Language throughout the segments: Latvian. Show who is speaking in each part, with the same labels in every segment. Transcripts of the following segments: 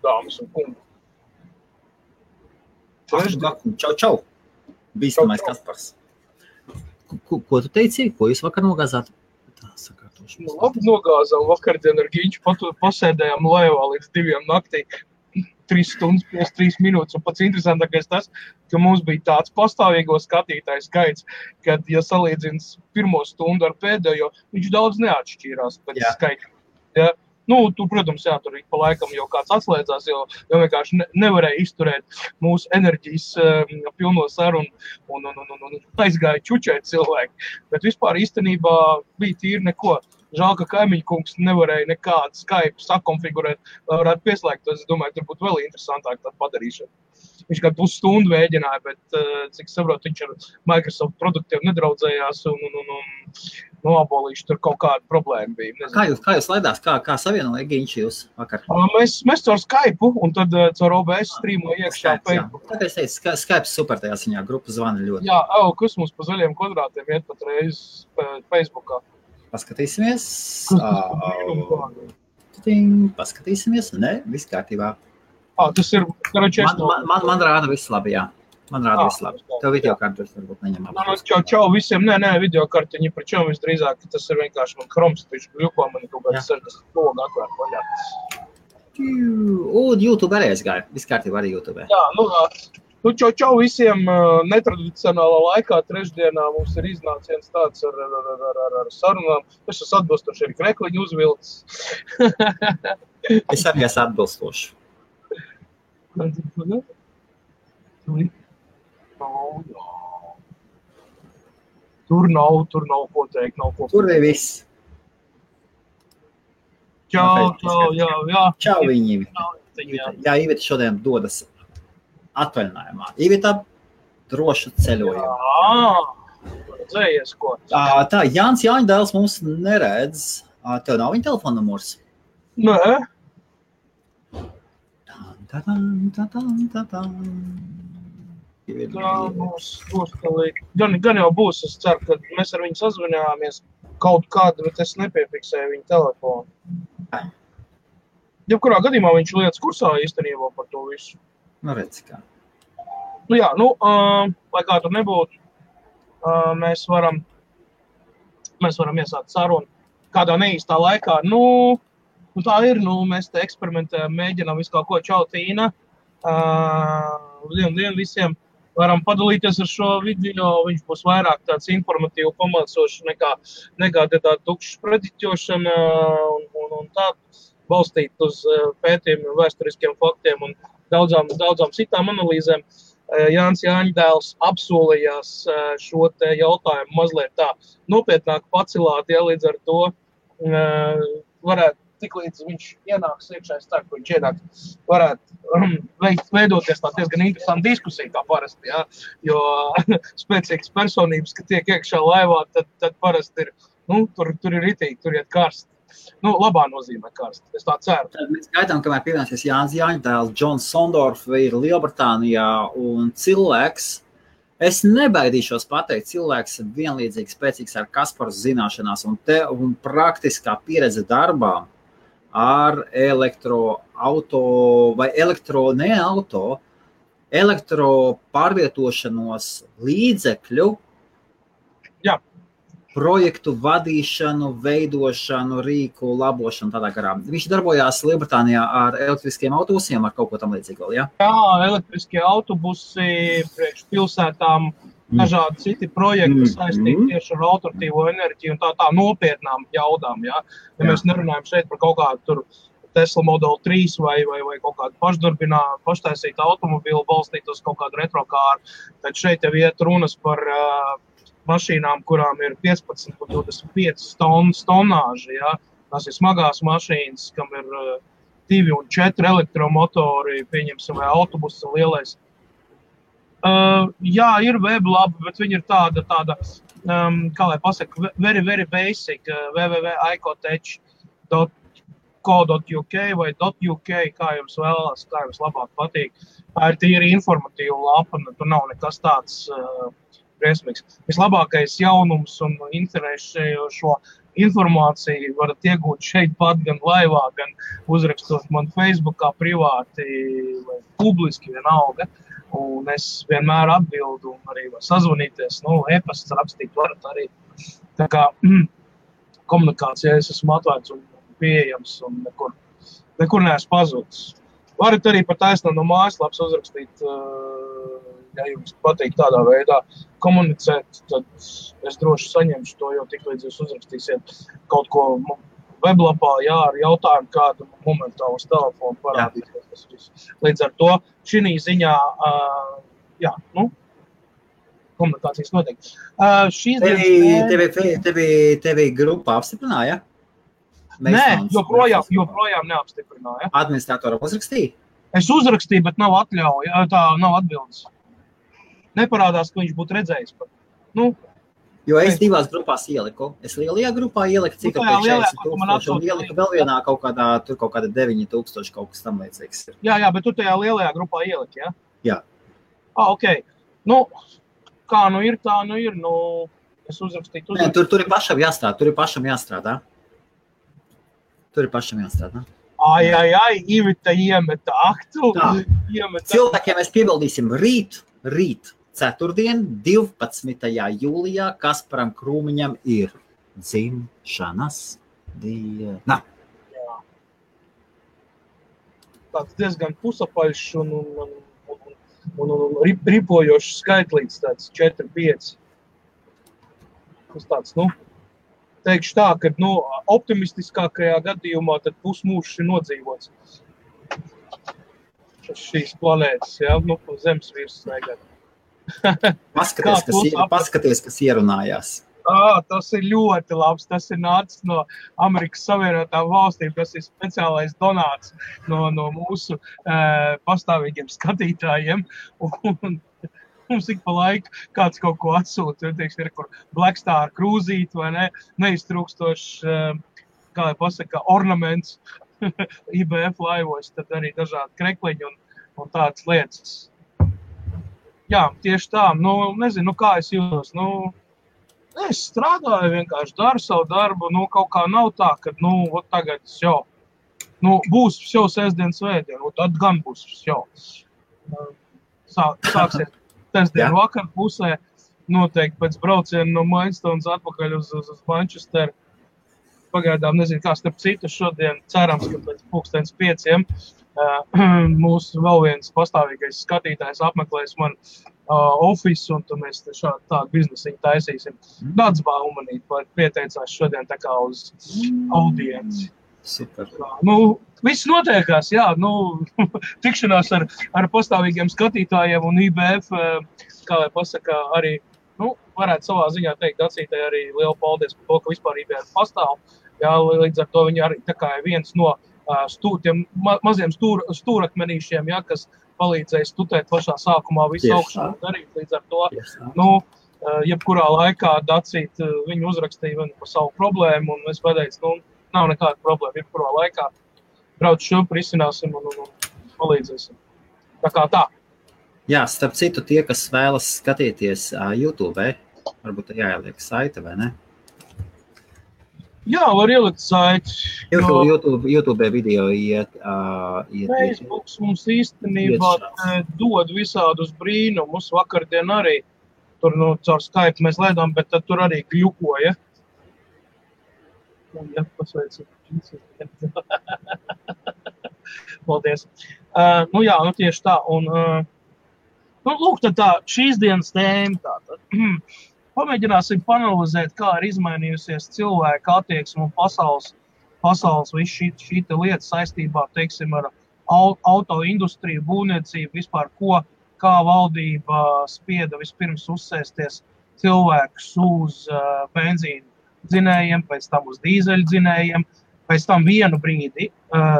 Speaker 1: dāmas un kungi.
Speaker 2: Čau. Bīstamais Kaspars. Ko tu teici? Ko jūs vakar nogāzāt?
Speaker 1: Labi nogāzām vakardien ar Giņķu, pasēdējām laivā līdz 2 naktī, 3 stundas 53 minūtes, un pats interesantākais tas, ka mums bija tāds pastāvīgo skatītāju skaits, kad, ja salīdzins pirmo stundu ar pēdējo, viņš daudz neatšķīrās pēc skaita. Ja? Nu, tu, protams, tur pa laikam jau kāds atslēdzās, jo vienkārši nevarēja izturēt mūsu enerģijas pilno sarunu un aizgāja čučēt cilvēki. Bet vispār īstenībā bija tīri neko. Žēl, ka kaimiņu kungs nevarēja nekādu Skype sakonfigurēt, lai varētu pieslēgt. Es domāju, tur būtu vēl interesantāk tādu padarīšanu. Viņš kā pusstundu mēģināja, bet, cik saprotu, viņš ar Microsoft produktiem nedraudzējās un noabolīši tur kaut kāda problēma bija.
Speaker 2: Nezinu. Kā jūs laidās? Kā savienoja Giņš jūs vakar?
Speaker 1: Mēs caur Skype un tad caur OBS streamoju iekšā Facebook.
Speaker 2: Tāpēc es teicu, Skype super tajā ziņā, grupa zvana ļoti.
Speaker 1: Jā, kas mums pa zaļiem kvadrātiem iet pat reiz Facebookā.
Speaker 2: Paskatīsimies. Paskatīsimies. Ne, viss kārtībā.
Speaker 1: Tas ir,
Speaker 2: man rāda viss labi, jā. Man rāda viss labi. Tev videokartus varbūt neņem labi.
Speaker 1: Čau visiem. Nē, videokartiņi par čau visdrīzāk. Tas ir vienkārši man Chroms, taču gļuko man kaut kāds 60 logu atvērt vaļā.
Speaker 2: YouTube arī aizgāja. Viss kārtībā arī YouTube.
Speaker 1: Jā, čau visiem. Netradicionālā laikā trešdienā mums ir iznāciens tāds ar sarunām. Es esmu atbilstoši arī krekliņu uzvilcis.
Speaker 2: Es arī esmu atbilstoši.
Speaker 1: Tur nav ko teikt, nav ko.
Speaker 2: Tur ir viss.
Speaker 1: Čau, jā.
Speaker 2: Čau viņiem. Jā, Iveta šodien dodas atvaļinājumā. Iveta drošu ceļojumu.
Speaker 1: Jā, dzējies ko.
Speaker 2: Tā, Jānis Jāņdēls mums neredz. Tev nav viņa telefona numurs?
Speaker 1: Nē. Gan jau būs, es ceru, ka mēs ar viņu sazvanījāmies kaut kādu, bet es nepiefiksēju viņu telefonu. Jebkurā gadījumā viņš lietas kursā īstenībā par to visu.
Speaker 2: Redz kā.
Speaker 1: Lai kā tur nebūtu, mēs varam iesākt sarunu kādā neīstā laikā. Tā ir, mēs te eksperimentējam, mēģinām visu kaut ko. Čau, Tīna. Dien visiem varam padalīties ar šo video. Viņš būs vairāk tāds informatīvi pamācošs nekā tāda tukšas prediķošana un tā balstīt uz pētījumiem, vēsturiskiem faktiem un daudzām citām analīzēm. Jānis Jāņdēls apsolījās šo te jautājumu mazliet tā nopietnāk pacilāt, līdz ar to varētu tik līdz viņš ienāks iekšā, es ceru, ka viņš ienāks, varētu veidoties tā diezgan interesanta diskusija kā parasti, jā, jo spēcīgas personības, ka tiek iekšā laivā, tad parasti ir, tur ir ritīgi, tur iet karsti. Labā nozīmē karsti, es tā ceru.
Speaker 2: Tad mēs gaidām, kamēr pievienosies Jānis Jāņdēls, Džons Sondorf ir Lielbritānijā un cilvēks, es nebaidīšos pateikt, cilvēks vienlīdzīgi spēcīgs ar Kasparu zināšanās un praktiskā pieredze darbā ar elektro pārvietošanos līdzekļu, projektu vadīšanu, veidošanu, rīku, labošanu, tādā garā. Viņš darbojās Lielbritānijā ar elektriskiem autobusiem, ar kaut ko tam līdzīgu vēl, jā?
Speaker 1: Jā, elektriskie autobusi priekš pilsētām, dažādi citi projekti saistīti tieši ar alternatīvo enerģiju un tā nopietnām jaudām, jā. Ja mēs nerunājam šeit par kaut kādu tur Tesla Model 3 vai kaut kādu paštaisītu automobīlu balstīt uz kaut kādu retrokāru, tad šeit jau iet runas par mašīnām, kurām ir 15 un 25 tonnāži, jā. Tas ir smagās mašīnas, kam ir 2 un 4 elektromotori, pieņemsim, vai autobuss lielais. Jā, ir web labi, bet viņi ir tāda, kā lai pasaka, very, very basic, www.icotech.co.uk vai .uk, kā jums vēlās, kā jums labāk patīk. Tā ir tīri informatīva lapa, tur nav nekas tāds briesmīgs. Vislabākais jaunums un interesējošo informāciju varat iegūt šeit pat, gan laivā, gan uzrakstot man Facebookā privāti vai publiski vienalga. Un es vienmēr atbildu un arī var sazvanīties, e-pasts rakstīt varat arī. Tā kā komunikācijā es esmu atvērts un pieejams un nekur neesmu pazudis. Varat arī par taisnu no mājaslapas uzrakstīt, ja jums patīk tādā veidā komunicēt, tad es droši saņemšu to, jo tik līdz jūs uzrakstīsiet kaut ko weblapā, ar jautājumu kādu momentālu uz telefonu parādīsies. Līdz ar to šī ziņā, komunikācijas notiek.
Speaker 2: Tevi grupa apstiprināja?
Speaker 1: Nē, joprojām neapstiprināja.
Speaker 2: Administratoram uzrakstīja?
Speaker 1: Es uzrakstīju, bet nav atļauja, tā nav atbildes. Neparādās, ka viņš būtu redzējis pat.
Speaker 2: Jo es divās grupās ieliku. Es lielajā grupā ieliku cik apēc 40,000 un ieliku vēl vienā kaut kāda 9,000 kaut kas tam līdzīgs ir.
Speaker 1: Jā, bet tu tajā lielajā grupā ieliki, ja?
Speaker 2: Jā.
Speaker 1: Ok. Kā ir, tā ir. Es uzrakstīju.
Speaker 2: Nē, tur ir pašam jāstrādā.
Speaker 1: Ivita iemeta aktu.
Speaker 2: Cilvēkiem mēs piebildīsim rīt, ceturtdien, 12. jūlijā, Kasparam Krūmiņam ir dzimšanas diena.
Speaker 1: Jā. Tāds diezgan pusapaļš un ripojošs skaitlīts, tāds 4-5. Tas tāds, teikšu tā, ka optimistiskākajā gadījumā tad pusmūžs ir nodzīvots. Šīs planētas, zemes virsmas negad.
Speaker 2: Paskaties, kas ierunājās.
Speaker 1: Tas ir ļoti labs. Tas ir nācis no Amerikas Savienotām valstīm. Tas ir speciālais donāts no mūsu pastāvīgiem skatītājiem. Un mums ik pa laiku kāds kaut ko atsūta. Ir kur Black Star krūzīt vai ne, neiztrūkstošs, kā lai pasaka, ornaments IBF laivos, tad arī dažādi krekliņi un tādas lietas. Jā, tieši tā. Nezinu, kā es jūtos. Es strādāju, vienkārši daru savu darbu. Kaut kā nav tā, ka, tagad jau. Būs jau sestdien svētdien, tad gan būs jau. Sāksies sestdien vakar pusē. Noteikti pēc brauciena no Mainstones atpakaļ uz Manchesteru. Pagaidām nezinu, kā starp citu šodien cerams, ka pēc 5:00 mūsu vēl viens pastāvīgais skatītājs apmeklēs man ofisu, un tad mēs tādu biznesiņu taisīsim. Tāds baumanīt, pieteicās šodien tā kā uz audienci.
Speaker 2: Super.
Speaker 1: Viss notiekās, tikšanās ar pastāvīgiem skatītājiem un IBF, kā lai pasaka, arī, varētu savā ziņā teikt, Dacītai arī lielu paldies par to, ka vispār IBF pastāv. Jā, līdz ar to viņi arī tā kā viens no tiem maziem stūrakmenīšiem, kas palīdzēja stutēt pašā sākumā visu augšā darīt. Līdz ar to, jebkurā laikā Dacīt viņu uzrakstīja par savu problēmu, un es pateicu, nav nekāda problēma, jebkurā laikā brauc šurp, risināsim un palīdzēsim. Tā kā tā.
Speaker 2: Jā, starp citu, tie, kas vēlas skatīties YouTube, varbūt jāieliek saite, vai ne?
Speaker 1: Jā, var ielikt saiti.
Speaker 2: YouTube video iet.
Speaker 1: Facebooks mums īstenībā dod visādus brīnumus. Vakardien arī tur caur Skype mēs lēdām, bet tad tur arī gļukoja. Pasveicu. Paldies. Tieši tā. Un, lūk, tad tā šīs dienas tēma tātad. Pamēģināsim panalizēt, kā ir izmainījusies cilvēka attieksme un pasaules visu šī lieta saistībā, teiksim, ar autoindustriju, būvniecību, vispār kā valdība spieda vispirms uzsēsties cilvēkus uz benzīnu dzinējiem, pēc tam uz dīzeļu dzinējiem. Pēc tam vienu brīdi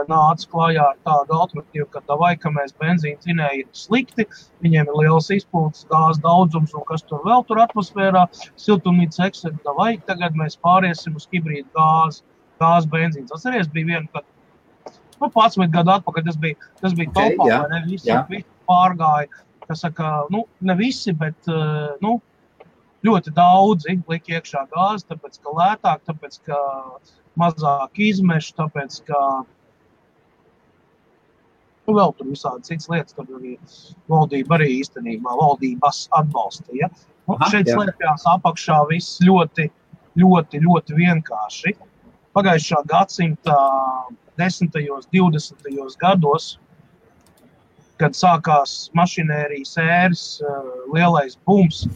Speaker 1: nāca klājā ar tādu alternatīvu, ka mēs benzīnu dzinēji ir slikti, viņiem ir liels izpūtas, gāzes daudzums un kas tur vēl tur atmosfērā, siltumnīca eksedu, tagad mēs pāriesim uz hibrīdu gāzes benzīns. Atceries, bija viena, kad 11 gadu atpakaļ, tas bija topā, vai ne, visi pārgāja, kas saka, ne visi, bet, ļoti daudzi lika iekšā gāzi, tāpēc, ka lētāk, tāpēc, ka mazāk izmešu, tāpēc, ka vēl tur visādi cits lietas, tur arī valdība arī īstenībā, valdības atbalstīja. Šeit slēpjās apakšā viss ļoti, ļoti, ļoti vienkārši. Pagājušā gadsimta 10. 20. gados, kad sākās mašinērijas ēras, lielais bums,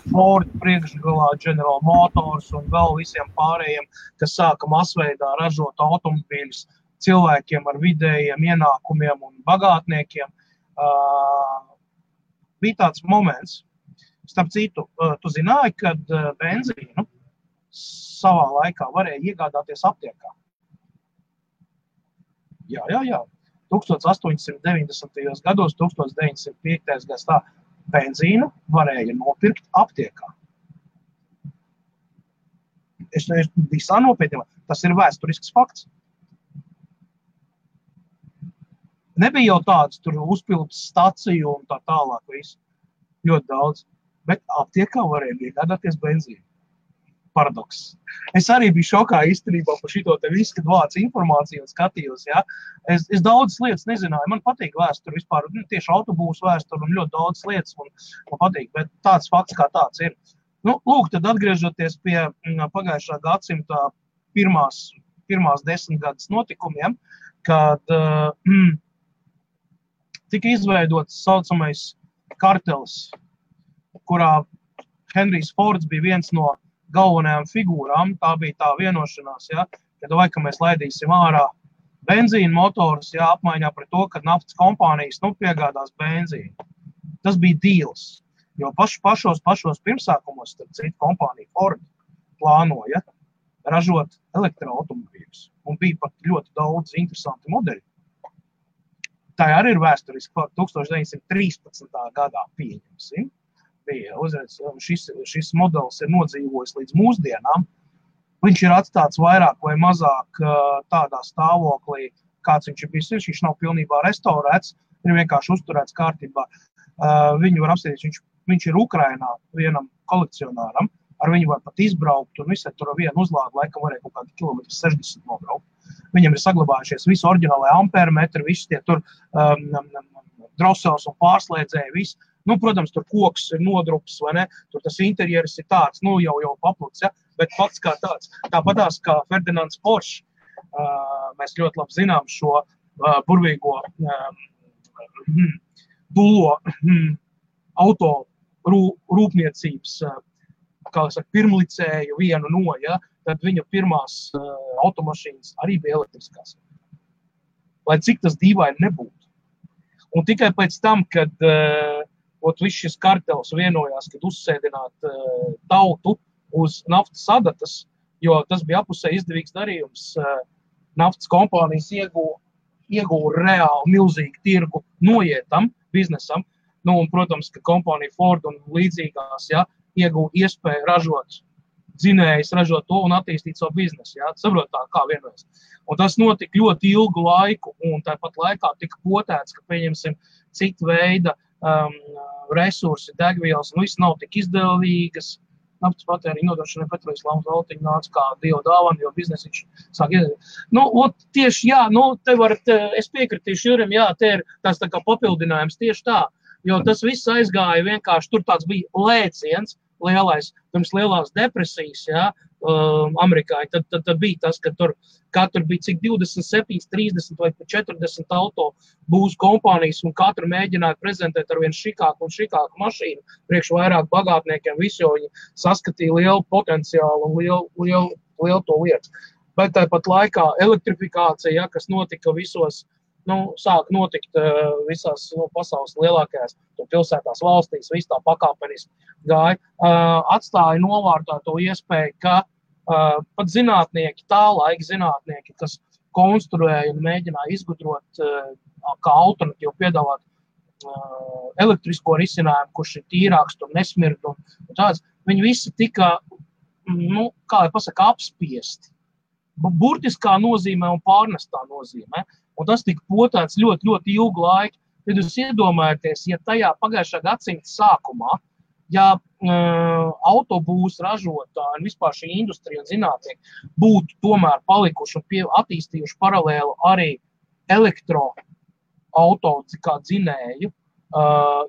Speaker 1: Ford priekšgalā, General Motors un vēl visiem pārējiem, kas sāka masveidā ražot automobīļus cilvēkiem ar vidējiem ienākumiem un bagātniekiem, bija tāds moments. Starp citu, tu zināji, kad benzīnu savā laikā varēja iegādāties aptiekā? Jā. 1890. gados, 1905. gads tā benzīnu varēja nopirkt aptiekā. Es visā nopietnībā. Tas ir vēsturisks fakts. Nebija jau tāds tur uzpildes staciju un tā tālāk visu. Ļoti daudz. Bet aptiekā varēja iegādāties benzīnu. Paradoks. Es arī biju šokā īstenībā par šito te visu, kad vācu informāciju un skatījos, ja. Es daudzas lietas nezināju. Man patīk vēsturi vispār, tieši autobūsu vēsturi un ļoti daudz lietas man patīk, bet tāds fakts kā tāds ir. Lūk, tad atgriežoties pie pagājušā gadsimta pirmās 10 gadus notikumiem, kad tika izveidots saucamais kartels, kurā Henrijs Fords bija viens no galvenajām figūrām, tā bija tā vienošanās, ja, kad vai, ka mēs laidīsim ārā benzīnu motors, ja, apmaiņā pret to, kad naftas kompānijas piegādās benzīnu. Tas bija deals, jo pašos pirmsākumos, starp citu, kompānija Ford plānoja ražot elektroautomobīļus, un bija pat ļoti daudz interesanti modeļi. Tā arī ir vēsturiski, 1913. gadā pieņemsim. Šis modelis ir nodzīvojis līdz mūsdienām. Viņš ir atstāts vairāk vai mazāk tādā stāvoklī, kāds viņš ir bijis. Viņš nav pilnībā restaurēts, ir vienkārši uzturēts kārtībā. Viņu var apstīties, viņš ir Ukrainā vienam kolekcionāram, ar viņu var pat izbraukt, un visai tur vienu uzlādu laikam varēja kaut kādi kilometri 60 nobraukt. Viņam ir saglabājušies visi oriģinālai ampermetri, visi tie tur drosels un pārslēdzēji, visi. Protams, tur koks ir nodrups, vai ne? Tur tas interjeris ir tāds, jau papluts, ja? Bet fakts kā tāds. Tāpatās kā Ferdinands Porsche, mēs ļoti labi zinām šo burvīgo dulo auto rūpniecības, kā saka, pirmlicēju vienu no, ja? Tad viņu pirmās automašīnas arī bija elektriskās. Lai cik tas dīvaini nebūtu. Un tikai pēc tam, kad viss šis kartels vienojās, kad uzsēdināt tautu uz naftas adatas, jo tas bija apusē izdevīgs darījums. Naftas kompānijas ieguva reāli milzīgu tirgu noietam biznesam. Un, protams, ka kompānija Ford un līdzīgās, ja, ieguva iespēju ražot dzinējus, ražot to un attīstīt savu biznesu. Ja, saprot tā, kā vienojas. Un tas notika ļoti ilgu laiku, un tāpat laikā tika potēts, ka pieņemsim citu veidu resursi, degvielas, un viss nav tik izdevīgas. Naftas patēriņa nodrošināja Petrojas Lāmas valtiņa nāca kā dieva dāvana, jo biznes sāk iedevīt. Tieši, jā, te varat, es piekritīšu Jurim, jā, te ir tās tā kā papildinājums tieši tā, jo tas viss aizgāja vienkārši, tur tāds bija lēciens lielais, pirms lielās depresijas, jā, Amerikā, tad bija tas, ka tur katru bija cik 27, 30 vai 40 auto būs kompānijas un katru mēģināja prezentēt ar vien šikāku un šikāku mašīnu priekš vairāk bagātniekiem, visi jau viņi saskatīja lielu potenciālu un lielu to lietu. Bet tāpat laikā elektrifikācija, ja, kas notika visos, sāk notikt visās pasaules lielākajās pilsētās valstīs, viss tā pakāpeniski gāja, atstāja novārtā to iespēju, ka pat zinātnieki, tā laika zinātnieki, kas konstruēja un mēģināja izgudrot kā alternatīvu piedāvāt elektrisko risinājumu, kurš ir tīrāks, tur nesmird un tāds, viņi visi tika, kā lai pasaka, apspiesti. Burtiskā nozīmē un pārnestā nozīmē. Un tas tika potēts ļoti, ļoti ilgu laiku. Tad jūs iedomājaties, ja tajā pagājušā gadsimta sākumā ja autobūs ražotāji un vispār šī industrija un zinātnieki būtu tomēr palikuši un attīstījuši paralēli arī elektroauto kā dzinēju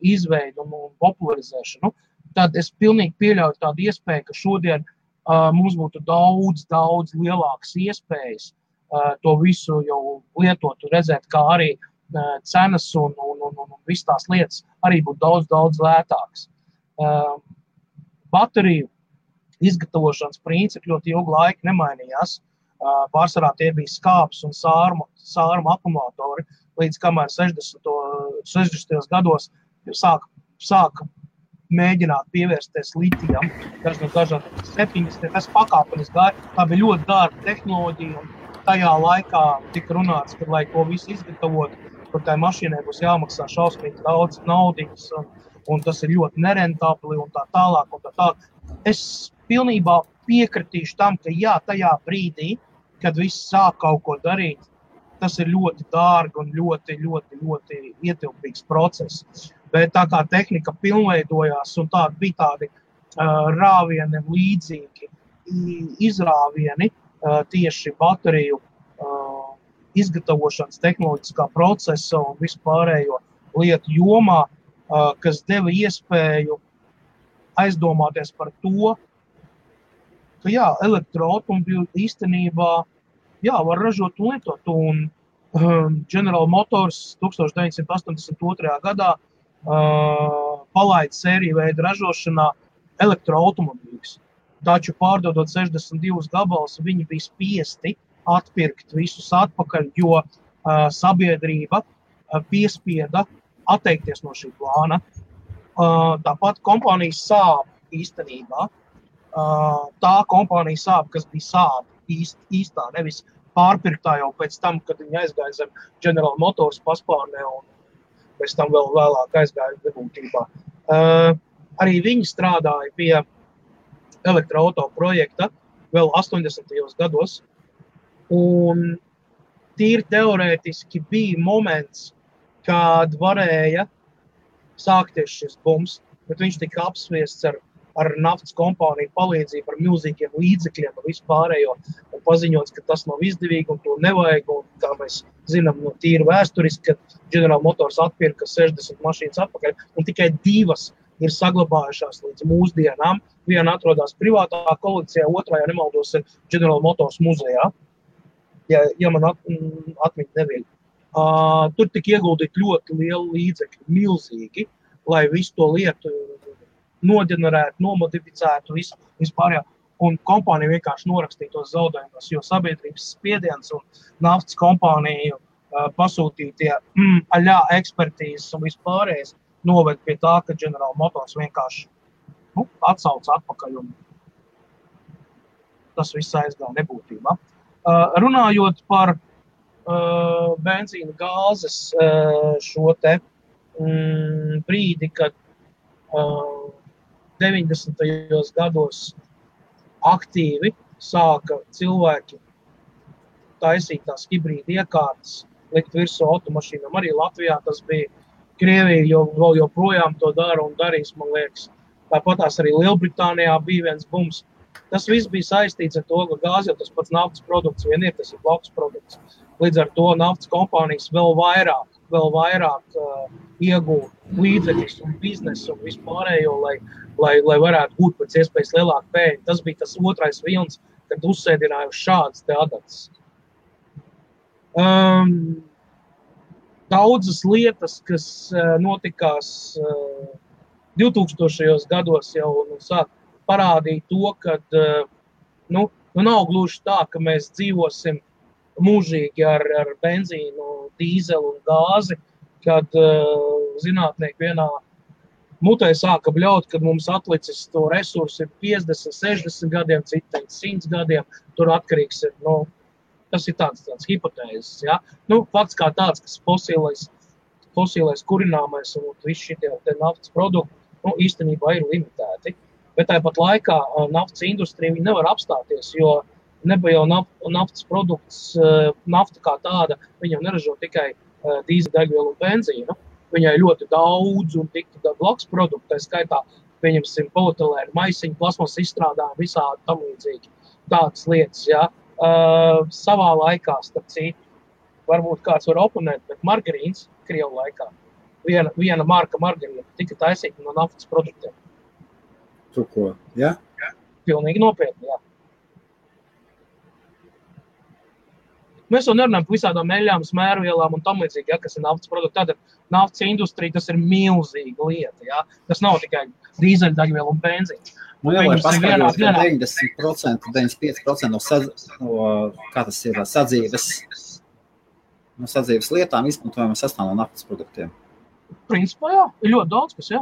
Speaker 1: izveidu un popularizēšanu, tad es pilnīgi pieļauju tādu iespēju, ka šodien mums būtu daudz lielākas iespējas to visu jau lietot un redzēt, kā arī cenas un viss tās lietas arī būtu daudz lētākas. Bateriju izgatavošanas principi ļoti ilgu laiku nemainījās. Pārsvarā tie bija skābes un sārmu akumulatori, līdz kamēr 60. gados sāka mēģināt pievērsties litijam, dažādi 70. Tas pakāpenis gāja, tā bija ļoti dārga tehnoloģija, un tajā laikā tika runāts, ka, lai to visu izgatavot, kur tai mašīnai būs jāmaksā šausmīgi daudz naudiņas, un tas ir ļoti nerentabli un tā tālāk. Es pilnībā piekritīšu tam, ka jā, tajā brīdī, kad viss sāk kaut ko darīt, tas ir ļoti dārgi un ļoti ietilpīgs process. Bet tā kā tehnika pilnveidojās un bija tādi rāvieni līdzīgi izrāvieni tieši bateriju izgatavošanas tehnoloģiskā procesa un vispārējo lietu jomā, kas deva iespēju aizdomāties par to, ka jā, elektroautomobīļi īstenībā var ražot un lietot. Un General Motors 1982. Gadā palaida sēriju veidu ražošanā elektroautomobīļus. Taču pārdodot 62 gabalus, viņi bija spiesti atpirkt visus atpakaļ, jo sabiedrība piespieda atteikties no šī plāna. Tāpat kompānija Saab īstenībā, tā kompānija Saab, kas bija Saab īstā, nevis pārpirktā jau pēc tam, kad viņi aizgāja zem General Motors paspārnē un pēc tam vēl vēlāk aizgāja nebūtībā. Arī viņi strādāja pie elektroauto projekta vēl 80. gados, un tīri teorētiski bija moments, kad varēja sākties šis bums, bet viņš tika apsviests ar naftas kompāniju palīdzību, ar milzīgiem līdzekļiem un vispārējo, un paziņots, ka tas nav izdevīgi un to nevajag, un kā mēs zinām no tīri vēsturiski, kad General Motors atpirka 60 mašīnas atpakaļ, un tikai 2 ir saglabājušās līdz mūsdienām. Viena atrodas privātā kolekcijā, otrā, ja nemaldos, ir General Motors muzejā, ja man atmiņa neviļ. Tur tika ieguldīt ļoti lielu līdzekļu, milzīgi, lai visu to lietu noģenerētu, nomodificētu vispārējā. Un kompānija vienkārši norakstīja tos zaudējumus, jo sabiedrības spiediens un naftas kompāniju pasūtītie ekspertīzes un vispārējais noved pie tā, ka General Motors vienkārši atsauc atpakaļ un tas viss aizgāja nebūtībā. Runājot par benzīna gāzes šo te brīdi, kad 90. gados aktīvi sāka cilvēki taisīt tās hibrīda iekārtas, likt virsū automašīnām. Arī Latvijā tas bija. Krievija vēl joprojām to dara un darīs, man liekas. Tāpatās arī Lielbritānijā bija viens bums. Tas viss bija saistīts ar to, ka gāze jau tas pats naftas produkts vien ir, tas ir blakus produkts. Līdz ar to naftas kompānijas vēl vairāk iegūt līdzekļus un biznesu un vispārējo, lai varētu būt pēc iespējas lielāku peļņu. Tas bija tas otrais vilns, kad uzsēdināja uz šādas te adatas. Daudzas lietas, kas notikās 2000. Gados jau sāk parādīt to, ka nav gluži tā, ka mēs dzīvosim mūžīgi ar benzīnu, dīzelu un gāzi, kad zinātnieki vienā mutē sāka bļaut, kad mums atlicis to resursu ir 50, 60 gadiem, citi 100 gadiem, tur atkarīgs ir, tas ir tāds hipotēzes, ja? Fakts kā tāds, kas fosilais kurināmais un visi šitie naftas produkti, īstenībā ir limitēti. Bet tāpat laikā naftas industrija viņi nevar apstāties, jo nebija jau naftas produkts, nafta kā tāda, viņa jau neražo tikai dīzeļdegvielu un benzīnu. Viņai ļoti daudz un tik blakus produktu, tā skaitā pieņemsim polietilēnu maisiņu, plasmas izstrādājumu, visādi tam līdzīgi. Tādas lietas, jā. Savā laikā, starp citu, varbūt kāds var oponēt, bet margarīns Krievu laikā, viena marka margarīna tika taisīta no naftas produktiem.
Speaker 2: Tu ko, jā?
Speaker 1: Pilnīgi nopietni, jā. Mēs jau nerunājam par visādām eļām, smērvielām un tam līdzīgi, ja, kas ir naftas produkti. Tātad naftas industrija, tas ir milzīga lieta, ja. Tas nav tikai dīzeļdegviela un benzīns.
Speaker 2: Nu jā, lai paskaidros, ka 90%, 95% no kā tas ir, sadzīves lietām izmantojama sastāv no naftas produktiem.
Speaker 1: Principā, jā, ir ļoti daudz, kas, jā.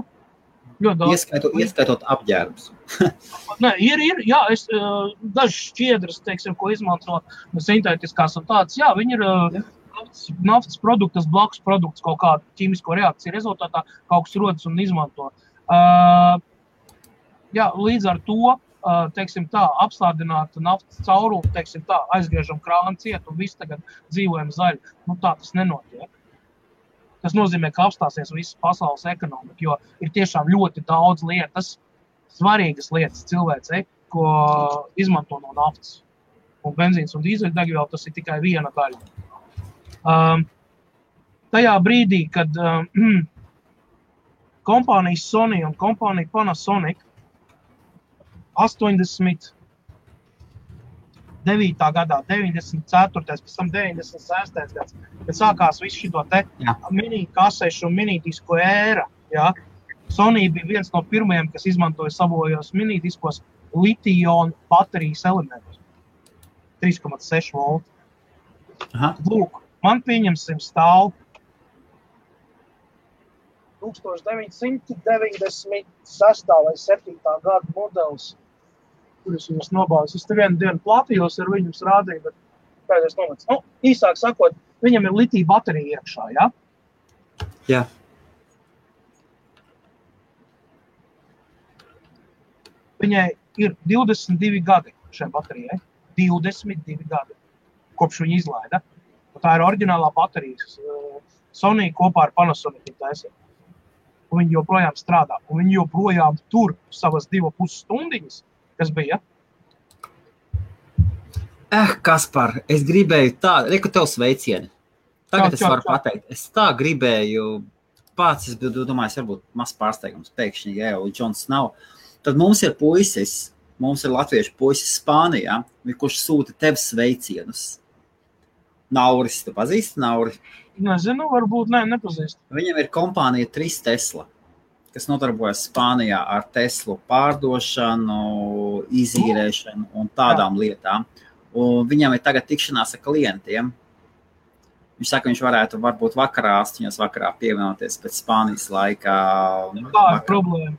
Speaker 2: Ieskaitot apģērbus.
Speaker 1: Nē, ir, jā, daži šķiedras, teiksim, ko izmanto sintētiskās un tādas, jā, viņi ir naftas produktas, blakus produkts, kaut kādu ķīmisko reakciju rezultātā, kaut kas rodas un izmanto. Jā, līdz ar to, teiksim tā, apstādināta naftas caurumu, teiksim tā, aizgriežam krānu ciet un viss tagad dzīvojam zaļi. Nu tā tas nenotiek. Tas nozīmē, ka apstāsies visas pasaules ekonomika, jo ir tiešām ļoti daudz lietas, svarīgas lietas cilvēcei, ko izmanto no naftas. Un benzīns un dīzeļdegviela tas ir tikai viena daļa. Tajā brīdī, kad kompānijas Sony un kompānija Panasonic 89. gadā, 94. pēc tam 96. gads, kad sākās visu šito te mini-kasešu un mini-disku ēra. Ja? Sony bija viens no pirmajiem, kas izmantoja savojos mini-diskos litiju-ionu baterijas elementus. 3,6 volti. Lūk, man pieņemsim stāv 1996. vai 7. gada modelis, kurus jums nobāvis. Es te vienu dienu platījos ar viņus rādīju, bet pēdējais nomets. Nu, īsāk sakot, viņam ir litija baterija iekšā, ja?
Speaker 2: Jā.
Speaker 1: Viņai ir 22 gadi šai baterijai. 22 gadi, kopš viņa izlaida. Un tā ir oriģinālā baterija. Sony kopā ar Panasonic taisīja. Un viņi joprojām strādā. Un viņi joprojām tur savas 2,5 stundiņas, kas bija.
Speaker 2: Kaspar, es gribēju tā, reku tev sveicieni. Tagad es varu pateikt. Es tā gribēju, pats, es domāju, varbūt maz pārsteigums, pēkšņi, ja jau Džons nav. Tad mums ir puisis, mums ir latviešu puisis Spānijā, kurš sūta tev sveicienus. Nauris, tu pazīsti Nauri?
Speaker 1: Nezinu, varbūt nepazīst.
Speaker 2: Viņam ir kompānija 3 Tesla, kas nodarbojas Spānijā ar Teslu pārdošanu, izīrēšanu un tādām lietām. Un viņam ir tagad tikšanās ar klientiem. Viņš saka, viņš varētu varbūt vakarā, 8 vakarā pievienoties pēc Spānijas laikā.
Speaker 1: Tā ir problēma.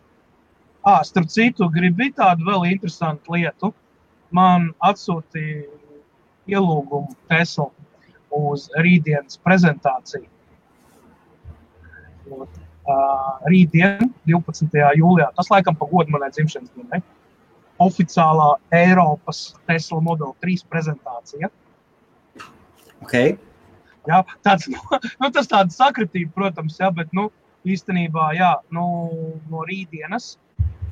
Speaker 1: Starp citu, gribi tādu vēl interesantu lietu. Man atsūtīja ielūgumu Tesla uz rītdienas prezentāciju. Rītdien, 12. jūlijā, tas laikam pa godu manai dzimšanas dienai, oficiālā Eiropas Tesla Model 3 prezentācija.
Speaker 2: Okay.
Speaker 1: Jā, tas tāda sakritība, protams, jā, bet, īstenībā, jā, no rītdienas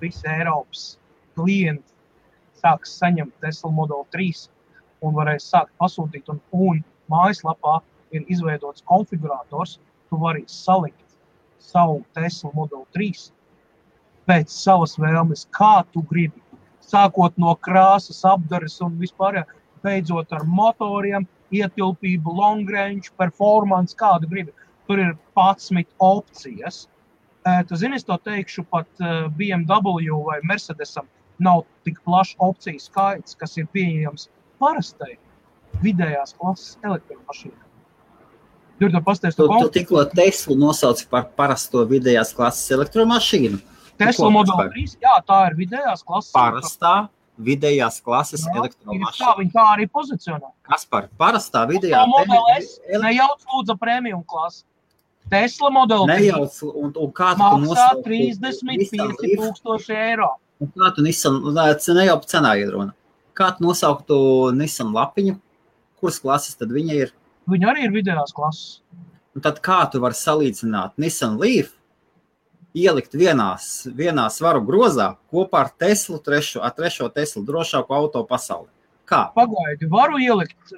Speaker 1: visi Eiropas klienti sāks saņemt Tesla Model 3 un varēs sākt pasūtīt, un mājaslapā ir izveidots konfigurators, tu vari salikt savu Tesla Model 3 pēc savas vēlmes, kā tu gribi, sākot no krāsas, apdares un vispār, beidzot ar motoriem, ietilpību, long range, performance, kādu gribi. Tur ir 11 opcijas. Tu zini, es to teikšu, pat BMW vai Mercedesam nav tik plašs opciju skaits, kas ir pieejams parastai vidējās klases elektromašīnai.
Speaker 2: Tu tikko Teslu nosauci par parasto vidējās klases elektromašīnu?
Speaker 1: Tesla Model 3, jā, tā ir vidējās klases.
Speaker 2: Parastā vidējās klases elektromašīna.
Speaker 1: Viņa tā arī pozicionē.
Speaker 2: Kaspar, parastā vidējā...
Speaker 1: Model S, nejauc lūdza premium klasi. Tesla Model 3
Speaker 2: nejauc, un kā tu
Speaker 1: maksā 35,000 eiro.
Speaker 2: Un kā tu Nissan, nejauc cenā iedrona. Kā tu nosauktu Nissan lapiņu? Kuras klases tad viņa ir?
Speaker 1: Viņa arī ir vidējās klases.
Speaker 2: Un tad kā tu vari salīdzināt Nissan Leaf ielikt vienā svaru grozā kopā ar Teslu, trešo Teslu drošāko auto pasaulē. Kā?
Speaker 1: Pagaidi, varu ielikt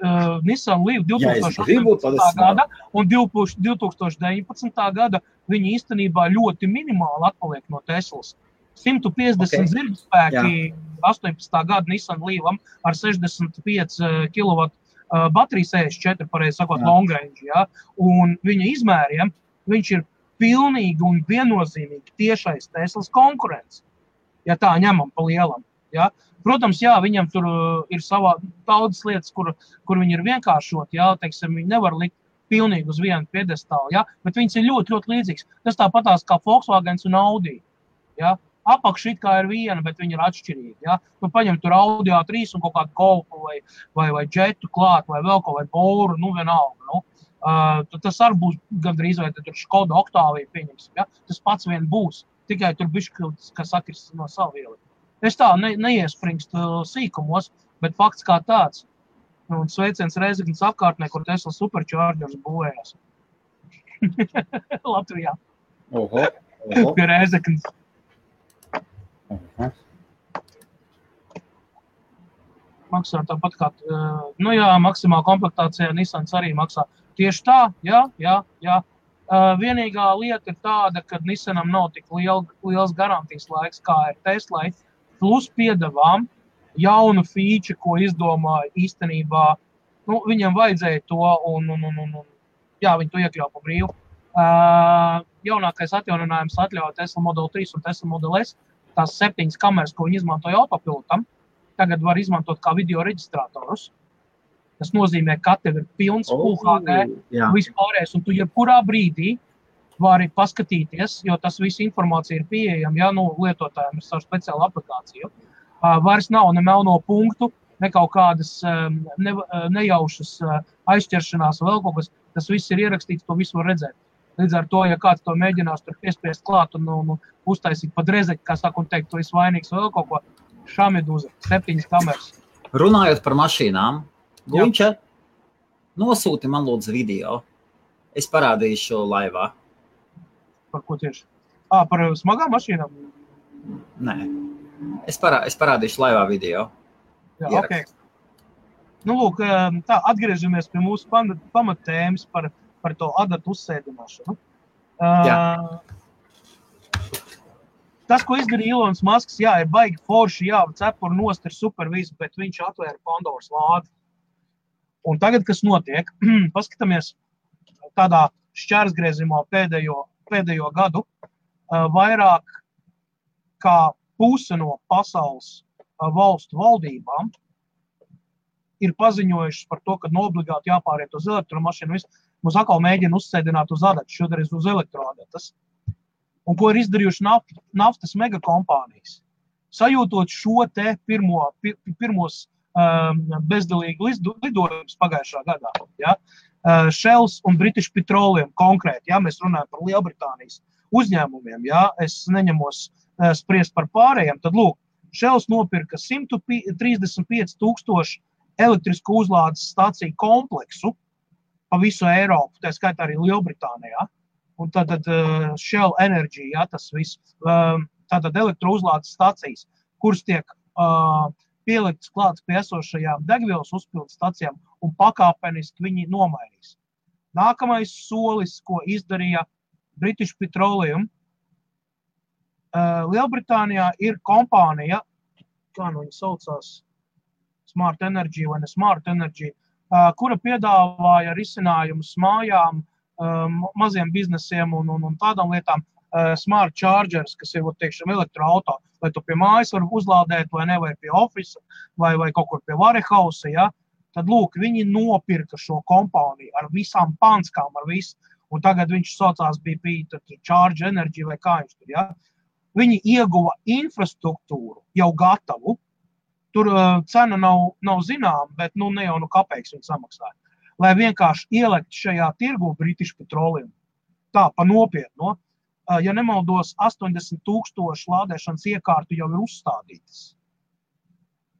Speaker 1: Nissan Leaf 2018. gada un 2019. gada viņi īstenībā ļoti minimāli atpaliek no Teslas. 150 zirgspēki 18. gada Nissan Leafam ar 65 kW bateriju 64, pareizi sakot, long range, ja? Un viņa izmēriem viņš ir pilnīgi un viennozīmīgi tiešais Teslas konkurents, ja tā ņemam pa lielam. Ja? Protams, jā, viņam tur ir savā daudzas lietas, kur viņi ir vienkāršot, jā, teiksim, viņi nevar likt pilnīgi uz vienu piedestālu, jā, bet viņas ir ļoti, ļoti līdzīgs. Tas tāpatās kā Volkswagens un Audi, jā. Apakši it kā ir viena, bet viņi ir atšķirīgi, jā. Tu paņem tur Audi A3 un kaut kādu Golfu vai Jetu klāt, vai vēl kaut vai Boru, nu vienalga, nu. Tas arī būs gandrīz, vai tur Škoda Octavia pieņemsim, jā. Tas pats vien būs, tikai tur bišķi, kas sakris no savu vieli. Es tā neiespringstu sīkumos, bet fakts kā tāds. Un sveiciens Rēzeknes apkārtnē, kur Tesla Superchargers būvējās. Latvijā.
Speaker 2: Oho.
Speaker 1: Pie Rēzeknes. Maksā tāpat kā, nu jā, maksimāla komplektācijā Nissans arī maksā. Tieši tā, jā. Vienīgā lieta ir tāda, ka Nissanam nav tik liels garantijas laiks, kā ir Teslai, plus piedevām jaunu feature, ko izdomāja īstenībā, nu, viņam vajadzēja to, un jā, viņi to iekļauj pa brīvu. Jaunākais atjauninājums atļauj Tesla Model 3 un Tesla Model S, tās 7 kameras, ko viņi izmantoja autopilotam, tagad var izmantot kā video reģistrātorus. Tas nozīmē, ka tev ir pilns UHD, vispārējais, un tu jebkurā brīdī vari paskatīties, jo tas viss informācija ir pieejama, ja, nu, lietotājiem ir savu speciālu aplikāciju. Vairs nav ne melno punktu, ne kaut kādas nejaušas aizķeršanās vēl kaut kas, tas viss ir ierakstīts, to visu var redzēt. Līdz ar to, ja kāds to mēģinās tur piespiest klāt un uztaisīt pa drezeki, kā saka un teikt, tu esi vainīgs vēl kaut ko, šamiduza, 7 kameras.
Speaker 2: Runājot par mašīnām, Guņča, nosūti man lūdzu video. Es parādīšu laivā.
Speaker 1: Par ko tieši? Par smagām mašīnām?
Speaker 2: Nē. Es parādīšu laivā video.
Speaker 1: Jā, ok. Nu, lūk, tā, atgriežamies pie mūsu pamattēmas par to adatu uzsēdināšanu. Tas, ko izdarīja Ilons Masks, jā, ir baigi forši, jā, cepuri nost ir super visu, bet viņš atvēra Pandoras lādi. Un tagad, kas notiek, paskatāmies tādā šķērsgriezumā pēdējo gadu, vairāk kā puse no pasaules valstu valdībām ir paziņojušas par to, ka obligāti jāpāriet uz elektromašīnu. Mums atkal mēģina uzsēdināt uz adatu, šodien uz elektroadatas. Un ko ir izdarījuši naftas megakompānijas? Sajūtot šo te pirmos bezdalīgi lidojumus pagājušā gadā. Ja? Shells un British Petroleum konkrēti, ja? Mēs runājam par Lielbritānijas uzņēmumiem, ja? Es neņemos spriest par pārējiem, tad lūk, Shells nopirka 135 000 elektrisku uzlādes stāciju kompleksu pa visu Eiropu, tā skaitā arī Lielbritānijā. Un tātad Shell Energy, ja, tas viss, tātad elektrouzlādes stācijas, kuras tiek pieliktas klāts pie esošajām degvielas uzpildes stacijām un pakāpeniski viņi nomainīs. Nākamais solis, ko izdarīja British Petroleum, Lielbritānijā ir kompānija, kā nu viņa saucās, Smart Energy vai ne Smart Energy, kura piedāvāja risinājumus mājām, maziem biznesiem un tādām lietām, smart chargers, kas ir, teikšam, elektroauto, vai tu pie mājas var uzlādēt, vai ne, vai pie ofisa, vai kaut kur pie warehouse, ja, tad, lūk, viņi nopirka šo kompāniju ar visām panskām, ar visu, un tagad viņš saucās BP, Charge Energy, vai kā viņš tur, ja. Viņi ieguva infrastruktūru jau gatavu, tur cena nav zinām, bet, nu, ne jau kapeiks viņi samaksāja, lai vienkārši ielikt šajā tirgu British Petroleum. Tā, pa nopietno. Ja nemaldos, 80 000 lādēšanas iekārtu jau ir uzstādītas.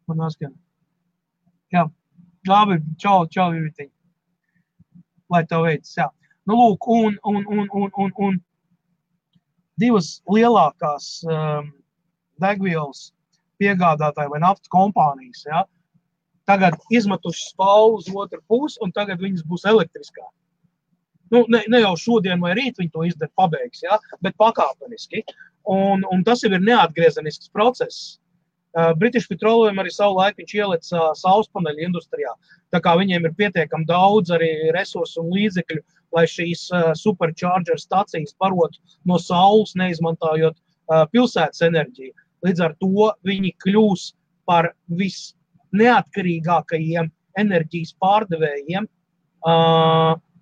Speaker 1: Man atskan. Jā, labi, čau, Ivitiņ. Lai tev veids, jā. Nu, lūk, un divas lielākās degvielas piegādātāji vai naftas kompānijas, ja, tagad izmetuši spālu uz otru pusi, un tagad viņas būs elektriskā. Nu, ne jau šodien vai rīt viņi to izdara pabeigs, ja, bet pakāpeniski. Un tas jau ir neatgriezenisks process. British Petroleum arī savu laiku viņš ielica saulespaneļu industrijā. Tā kā viņiem ir pietiekami daudz arī resursu un līdzekļu, lai šīs supercharger stacijas barotu no saules, neizmantojot pilsētas enerģiju. Līdz ar to viņi kļūs par visneatkarīgākajiem enerģijas pārdevējiem,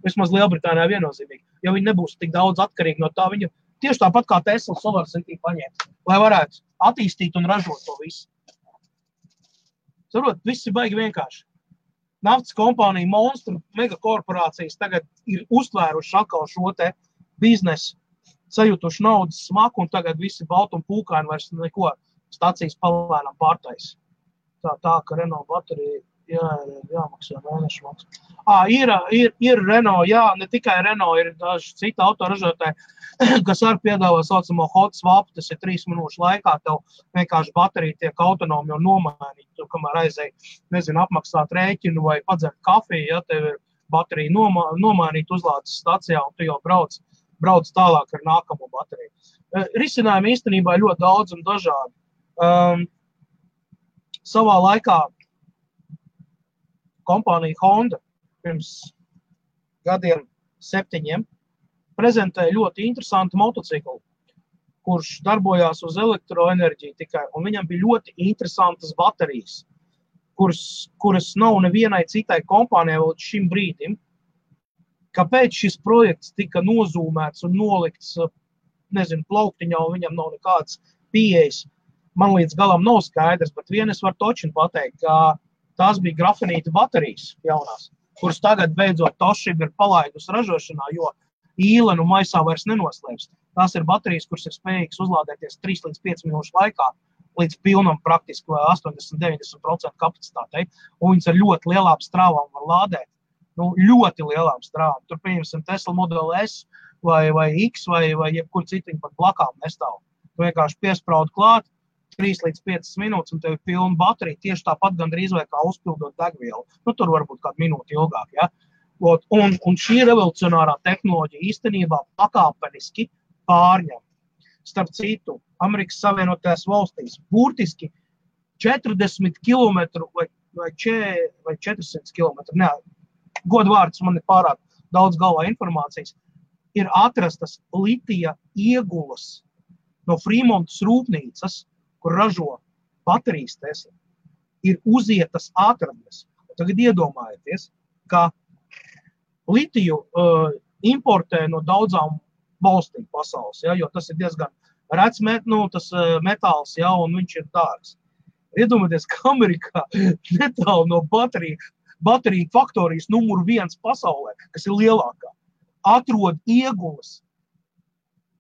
Speaker 1: vismaz Lielbritānijā viennozīmīgi. Jo viņi nebūs tik daudz atkarīgi no tā, viņu tieši tāpat kā Tesla Solar City paņemt, lai varētu attīstīt un ražot to visu. Saprot, viss ir baigi vienkārši. Naftas kompānija, monstru, megakorporācijas tagad ir uztvēruši atkal šo te biznesu, sajutuši naudas smaku, un tagad visi balti un pūkaini vairs neko stacijas palēnām pārtais. Tā, ka Renault baterija jāmaksā mēnešu maksu. Ir Renault, jā, ne tikai Renault, ir daži citi autoražotāji, kas arī piedāvā saucamo hot swap, tas ir 3 minūšu laikā, tev vienkārši baterija tiek autonomi un nomainīt, tu kamēr aizēj, nezinu, apmaksāt rēķinu vai padzert kafiju, ja tev ir baterija nomainīt uzlādes stacijā, un tu jau brauc tālāk ar nākamo bateriju. Risinājumi īstenībā ļoti daudz un dažādi. Savā laikā kompānija Honda pirms gadiem 7 prezentēja ļoti interesantu motociklu, kurš darbojās uz elektroenerģiju tikai, un viņam bija ļoti interesantas baterijas, kuras nav nevienai citai kompānijai līdz šim brīdim. Kāpēc šis projekts tika nozūmēts un nolikts, nezinu, plauktiņā, un viņam nav nekāds pieejas, man līdz galam nav skaidrs, bet vien es varu točinu pateikt, ka tās bija grafenīta baterijas jaunās, kuras tagad beidzot Toshiba ir palaidusi ražošanā, jo īlenu maisā vairs nenoslēps. Tās ir baterijas, kuras ir spējīgas uzlādēties 3 līdz 5 minūšu laikā, līdz pilnam praktiski 80-90% kapacitātei, un viņas ar ļoti lielām strāvām var lādēt. Nu, ļoti lielām strāvām. Tur, pieņemsim, Tesla Model S vai X vai jebkur citiņu pat blakām nestāv. Tu vienkārši piespraudi klāt, 3 līdz 5 minūtes, un tev ir pilna baterija, tieši tāpat gandrīz vai kā uzpildot degvielu. Nu, tur varbūt kādu minūti ilgāk, ja? Un šī revolucionārā tehnoloģija īstenībā pakāpeniski pārņem. Starp citu, Amerikas Savienotajās valstīs burtiski 40 km vai 400 km, ne, godvārds man ir pārāk daudz galvā informācijas, ir atrastas litija iegulas no Fremontas rūpnīcas, kur ražo baterijas Tesla, ir uzietas atradnes. Tagad iedomājieties, ka litiju importē no daudzām valstīm pasaules, ja, jo tas ir diezgan rets metāls, ja, un viņš ir dārgs. Iedomājieties, ka Amerikā netālu no bateriju faktorijas numur 1 pasaulē, kas ir lielākā, atrod iegulas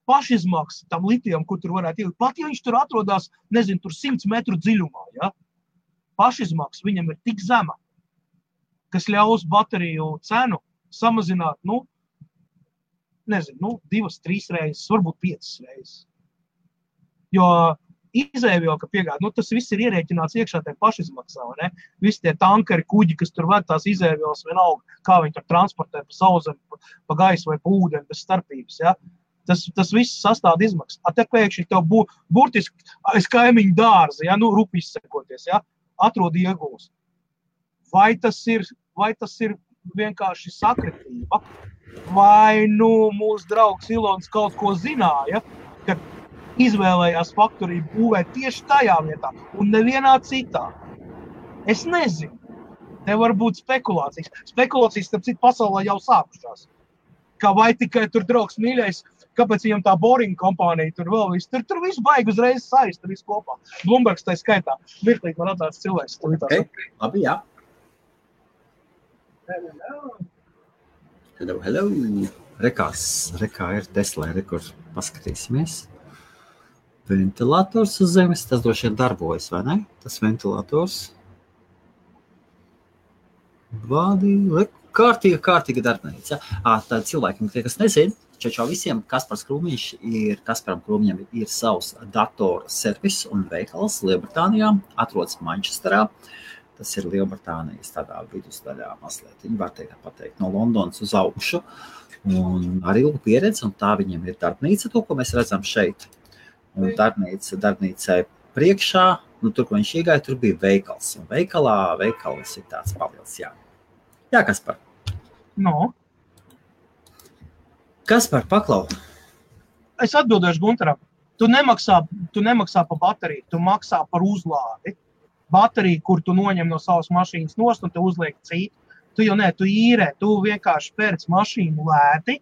Speaker 1: pašizmaksa tam litijam, kur tur varētu ielikt. Pat, ja viņš tur atrodās, nezinu, tur 100 metru dziļumā, ja? Pašizmaksa viņam ir tik zema, kas ļaus bateriju cenu samazināt, 2-3 reizes, varbūt 5 reizes. Jo izēvielu, ka piegāda, tas viss ir ierēķināts iekšā tajā pašizmaksā, ne? Visi tie tankeri, kuģi, kas tur ved tās izēvielas vienalga, kā viņi tur transportē pa sauszemi, pa gaisu vai pa ūdeni bez starpības, ja? Tas viss sastāda izmaksas. Te pēkšņi tev burtiski aiz kaimiņu dārza, ja, rupi izsekoties, ja, atrod iegulas. Vai tas ir vienkārši sakritība? Vai mūsu draugs Ilons kaut ko zināja, kad izvēlējās faktoriju būvēt tieši tajā vietā un nevienā citā? Es nezinu. Te var būt spekulācijas. Spekulācijas, starp citu, pasaulē jau sākušās. Kā vai tikai tur draugs mīļais, kāpēc viņam tā Boring kompānija tur vēl viss. Tur viss baigi uzreiz saist, tur viss kopā. Bloombergs tai skaitā. Mirklīt man atsāc cilvēks.
Speaker 2: Okay. Labi, jā. Hello. Rekā ir Tesla, kur paskatīsimies. Ventilators uz zemes, tas droši vien darbojas, vai ne? Tas ventilators. Kārtīga darbnīca. Tā cilvēkiem, tie, kas nezin, Čau visiem, Kaspars Kasparam Krūmiņam ir savs datoru servis un veikals Lielbritānijā, atrodas Manchesterā. Tas ir Lielbritānijas tādā vidusdaļā mazliet, viņi var pateikt, no Londonas uz augšu. Un ar ilgu pieredzi, un tā viņiem ir darbnīca, to, ko mēs redzam šeit. Un darbnīcai priekšā, tur, ko viņš iegāja, tur bija veikals. Un veikals ir tāds pavils, jā. Jā, Kaspar.
Speaker 1: No.
Speaker 2: Kaspar, paklau.
Speaker 1: Es atbildēšu Gunteram. Tu nemaksā par bateriju, tu maksā par uzlādi. Bateriju, kur tu noņem no savas mašīnas nost un te uzliek citu. Tu īrē, tu vienkārši pērc mašīnu lēti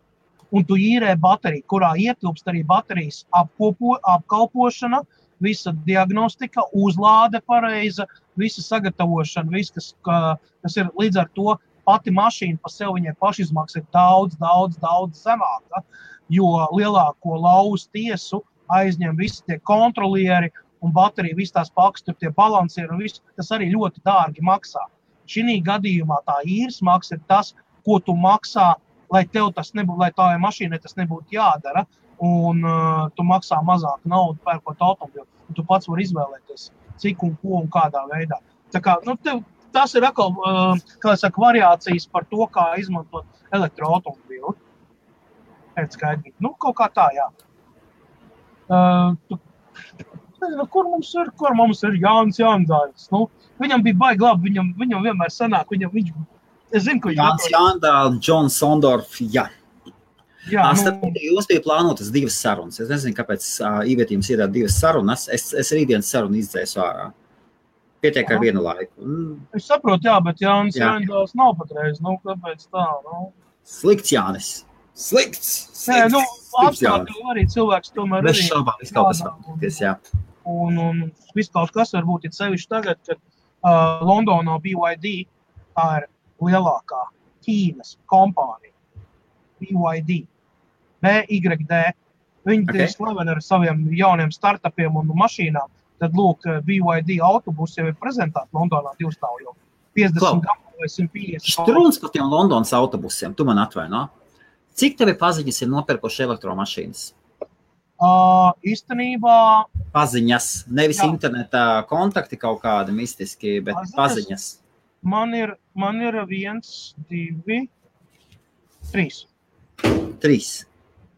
Speaker 1: un tu īrē bateriju, kurā ietilpst arī baterijas apkalpošana, visa diagnostika, uzlāde pareiza, visa sagatavošana, viss, kas ir līdz ar to pati mašīna pa sev, viņai pašizmaksa ir daudz zemāka, jo lielāko lauzu tiesu aizņem visi tie kontrolieri un baterija, visi tās pakas, tur tie balansieri un viss, tas arī ļoti dārgi maksā. Šī gadījumā tā īres maksa ir tas, ko tu maksā, lai tev tas nebūtu, lai tavai mašīnai tas nebūtu jādara, un tu maksā mazāk naudu pērkot automobilu. Tu pats vari izvēlēties, cik un ko un kādā veidā. Tā kā, tas ir atkal, variācijas par to, kā izmantot elektroautomobilu. Pēc skaidrīgi. Kaut kā tā, jā. Kur mums ir Jānis Jāndāļs? Viņam bija baigi labi, viņam vienmēr sanāk, es zinu, ko
Speaker 2: Jānis Jāndāļs, John Sondorf, jā. Jums bija plānotas 2 sarunas. Es nezinu, kāpēc ievietījums ir 2 sarunas. Es rītdienas sarunu izdzēsu ārā. Pietiek ar vienu laiku.
Speaker 1: Es saprotu, jā, bet Jānis Jāndāļs nav patreiz. Kāpēc tā?
Speaker 2: Slikts Jānis. Slikts.
Speaker 1: Apstākļi arī cilvēks tomēr arī.
Speaker 2: Bez šaubām, viss kaut kas varbūt, jā.
Speaker 1: Un viss kaut kas varbūt ir sevišķi tagad, kad Londonā BYD, tā ir lielākā Ķīnas kompānija. BYD. BYD. Viņi ir slaveni ar saviem jauniem startupiem un mašīnām. Tad, lūk, BYD autobusi jau ir prezentēti Londonā 2 stāv jau 50 gadu vai 150.
Speaker 2: Štrūns par tiem Londonas autobusiem, tu man atvaino. Cik tevi paziņas ir nopirkuši elektromašīnas?
Speaker 1: Īstenībā...
Speaker 2: Paziņas, nevis internetā kontakti kaut kādi mistiski, bet paziņas.
Speaker 1: Man ir 1, 2, 3.
Speaker 2: 3?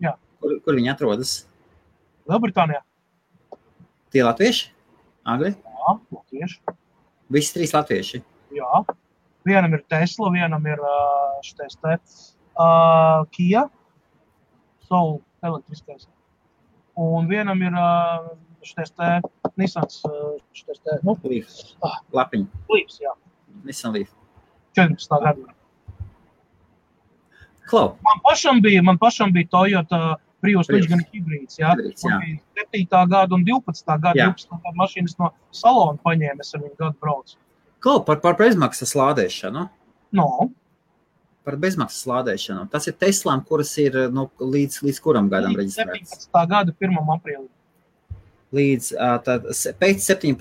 Speaker 1: Jā.
Speaker 2: Kur viņi atrodas?
Speaker 1: Lielbritānijā.
Speaker 2: Tie latvieši? Angļi?
Speaker 1: Jā, latvieši.
Speaker 2: Visi 3 latvieši?
Speaker 1: Jā. Vienam ir Tesla, vienam ir Kia, Soul elektriskais. Un vienam ir Nissans,
Speaker 2: Leaf. Lapiņa.
Speaker 1: Leafs, jā.
Speaker 2: Nissan Leaf.
Speaker 1: 14. gadu.
Speaker 2: Klau.
Speaker 1: Man pašam bija Toyota Prius, viņš gan hibrīds, jā. Man bija 7. gada un 12. gada, 12. gada mašīnas no salona paņēma, es ar viņu gadu braucu.
Speaker 2: Klau, par bezmaksas lādēšanu?
Speaker 1: No.
Speaker 2: Par bezmaksas lādēšanu. Tas ir Teslām, kuras ir līdz kuram gadam reģistrētas?
Speaker 1: 17. gada 1. aprīlī.
Speaker 2: Pēc 17.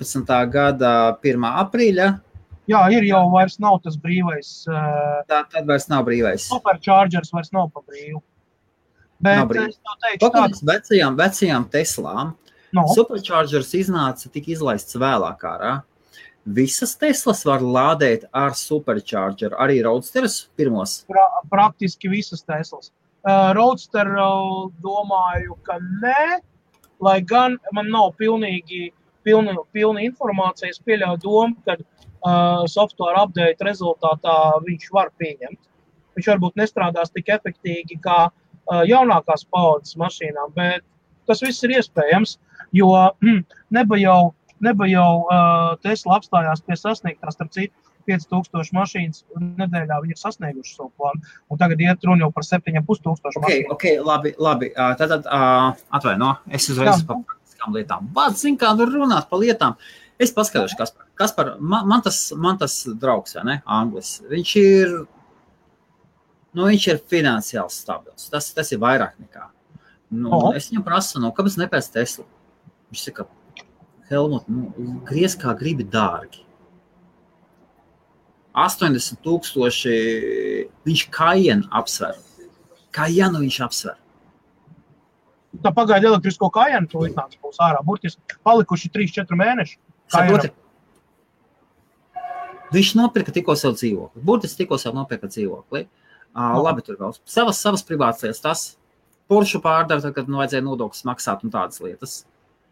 Speaker 2: gada 1. aprīļa?
Speaker 1: Jā, jau vairs nav tas brīvais.
Speaker 2: Tad vairs nav brīvais.
Speaker 1: Superchargers vairs nav pa brīvu. Bet es tev teikšu
Speaker 2: tādu. Vecajām Teslām Superchargers tika izlaists vēlāk ārā. Visas Teslas var lādēt ar Superchargeru, arī Roadsterus pirmos?
Speaker 1: Praktiski visas Teslas. Roadster domāju, ka nē, lai gan man nav pilna informācija, es pieļauju domu, kad software update rezultātā viņš var pieņemt. Viņš varbūt nestrādās tik efektīgi kā jaunākās paaudzes mašīnām, bet tas viss ir iespējams, jo neba jau Tesla apstājās pie sasniegtās, starp citu, 5000 mašīnas nedēļā viņi ir sasnieguši savu plānu, un tagad iet runa jau par 7500 mašīnu.
Speaker 2: Ok, labi. Tātad, atvaino, es uzreiz par praktiskām lietām. Vārds, zin kā runāt par lietām. Es paskatīšu, Kaspar, man tas draugs, vai ne, Anglis, viņš ir finansiāli stabils. Tas ir vairāk nekā. Es viņam prasu, kāpēc nepēc Tesla? Viņš saka, Helmut, griez kā gribi dārgi. 80,000 viņš Cayenne apsver. Cayenne viņš apsver.
Speaker 1: Tā pagaida elektrisko kājienu, to iznāca būs ārā. Burtiski palikuši 3-4 mēneši.
Speaker 2: Saproti? Viņš nopirka tikko savu dzīvokli. Burtiski tikko savu nopirka dzīvokli. Labi, tur vēl. Savas privātas lietas. Tas Porsche pārdara, tad, kad vajadzēja nodokļus maksāt un tādas lietas.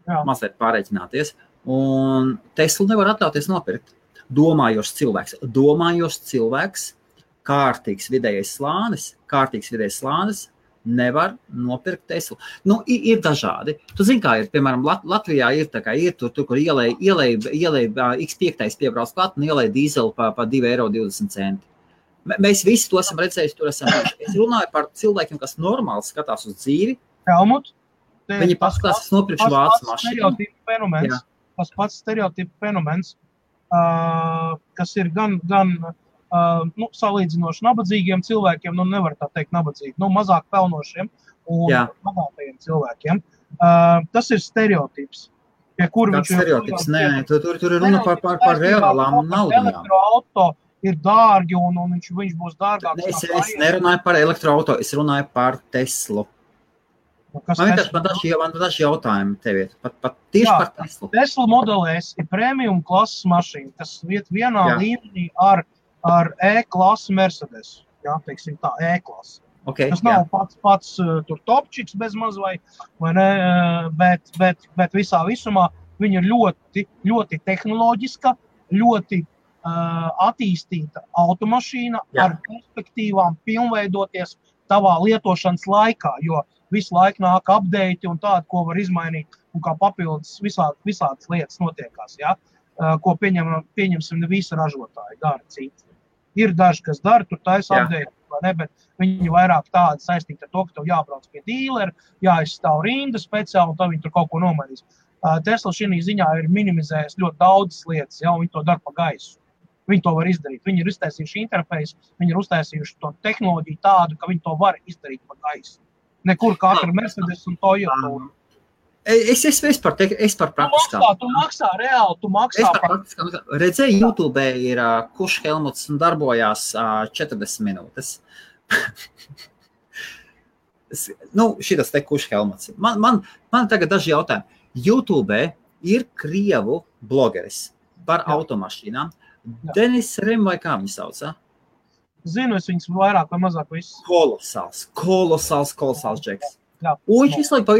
Speaker 1: Jā.
Speaker 2: Mazliet pārreķināties. Un Teslu nevar atļauties nopirkt. Domājošs cilvēks, kārtīgs vidējais slānis, nevar nopirkt Teslu. Nu, ir dažādi. Tu zini, kā ir, piemēram, Latvijā ir tā kā ir tur, kur ielej X5 piebrauc klāt un ielej dīzeli pa 2,20 €. Mēs visi to esam redzējuši, tur esam bijuši. Es runāju par cilvēkiem, kas normāli skatās uz dzīvi.
Speaker 1: Helmut,
Speaker 2: Viņi paskatās, nopirkšu vācu mašīnu.
Speaker 1: Tas pats stereotipu fenomens, kas ir gan salīdzinoši nabadzīgiem cilvēkiem, nevar tā teikt nabadzīgi, mazāk pelnošiem un bagātajiem cilvēkiem. Tas ir stereotips.
Speaker 2: Kāds stereotips? Nē, tur ir runa par reālām naudām.
Speaker 1: Elektroauto ir dārgi un viņš būs dārgāks.
Speaker 2: Es nerunāju par elektroauto, es runāju par Teslu. Man daži jautājumi tev ir. Pat tieši par Teslu.
Speaker 1: Tesla Model S ir premium klases mašīna, kas iet vienā līmenī ar E-klases Mercedes. Jā, teiksim tā, E-klase.
Speaker 2: Okay,
Speaker 1: tas nav pats tur topčiks bez maz vai ne, bet visā visumā viņa ir ļoti, ļoti tehnoloģiska, ļoti attīstīta automašīna ar perspektīvām pilnveidoties tavā lietošanas laikā, jo visu laiku nāk update un tādu, ko var izmainīt un kā papildus visādas lietas notiekās, ko pieņemsim ne visi ražotāji dara citi. Ir daži, kas dara, tur taisa update, vai ne, bet viņi vairāk tādi saistīti ar to, ka tev jābrauc pie dīlera, jāizstāv rinda speciāli, un tad viņi tur kaut ko nomainīs. Tesla šī ziņā ir minimizējis ļoti daudzas lietas, un viņi to dara pa gaisu. Viņi to var izdarīt. Viņi ir uztaisījuši interfeisu, viņi ir uztaisījuši to tehnoloģiju tādu, ka viņi to var izdarīt pa gaisu. Nekur katra Mercedes un Toyota.
Speaker 2: Es par praktiskām.
Speaker 1: Tu maksā reāli, tu maksā par...
Speaker 2: Redzēju, YouTube ir kurš Helmuts un darbojās 40 minūtes. Šitas te kurš Helmuts. Man tagad daži jautājumi. YouTube ir krievu blogeris par automašīnām. Denis Rem vai kā viņi sauc?
Speaker 1: Zinu, es viņus vairāk vai mazāk visus.
Speaker 2: Kolosāls džeks. Un viņš visu laiku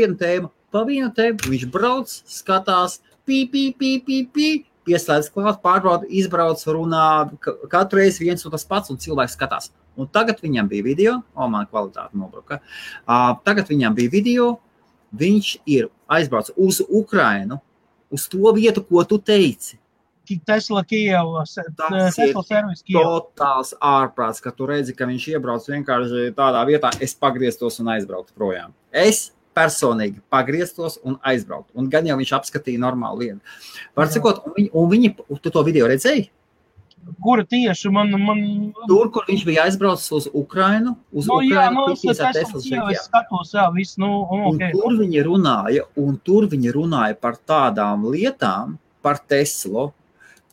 Speaker 2: pa vienu tēmu, viņš brauc, skatās, pieslēdz klāt, pārbauda, izbrauc, runā, katru reizi viens un tas pats, un cilvēks skatās. Un tagad viņam bija video, man kvalitāte nobruka, tagad viņam bija video, viņš ir aizbrauc uz Ukrainu, uz to vietu, ko tu teici.
Speaker 1: Tesla Kijeva, Tesla servis Kijeva.
Speaker 2: Totāls ārprāts, ka tu redzi, ka viņš iebrauc vienkārši tādā vietā, es pagrieztos un aizbrauktu projām. Es personīgi pagrieztos un aizbrauktu. Un gan jau viņš apskatīja normālu lietu. Var cikot, tu to video redzēji?
Speaker 1: Kura tieši man...
Speaker 2: Tur, kur viņš bija aizbraucis uz Ukrainu,
Speaker 1: es skatos, viss,
Speaker 2: okay. Un tur viņi runāja par tādām lietām, par Teslu,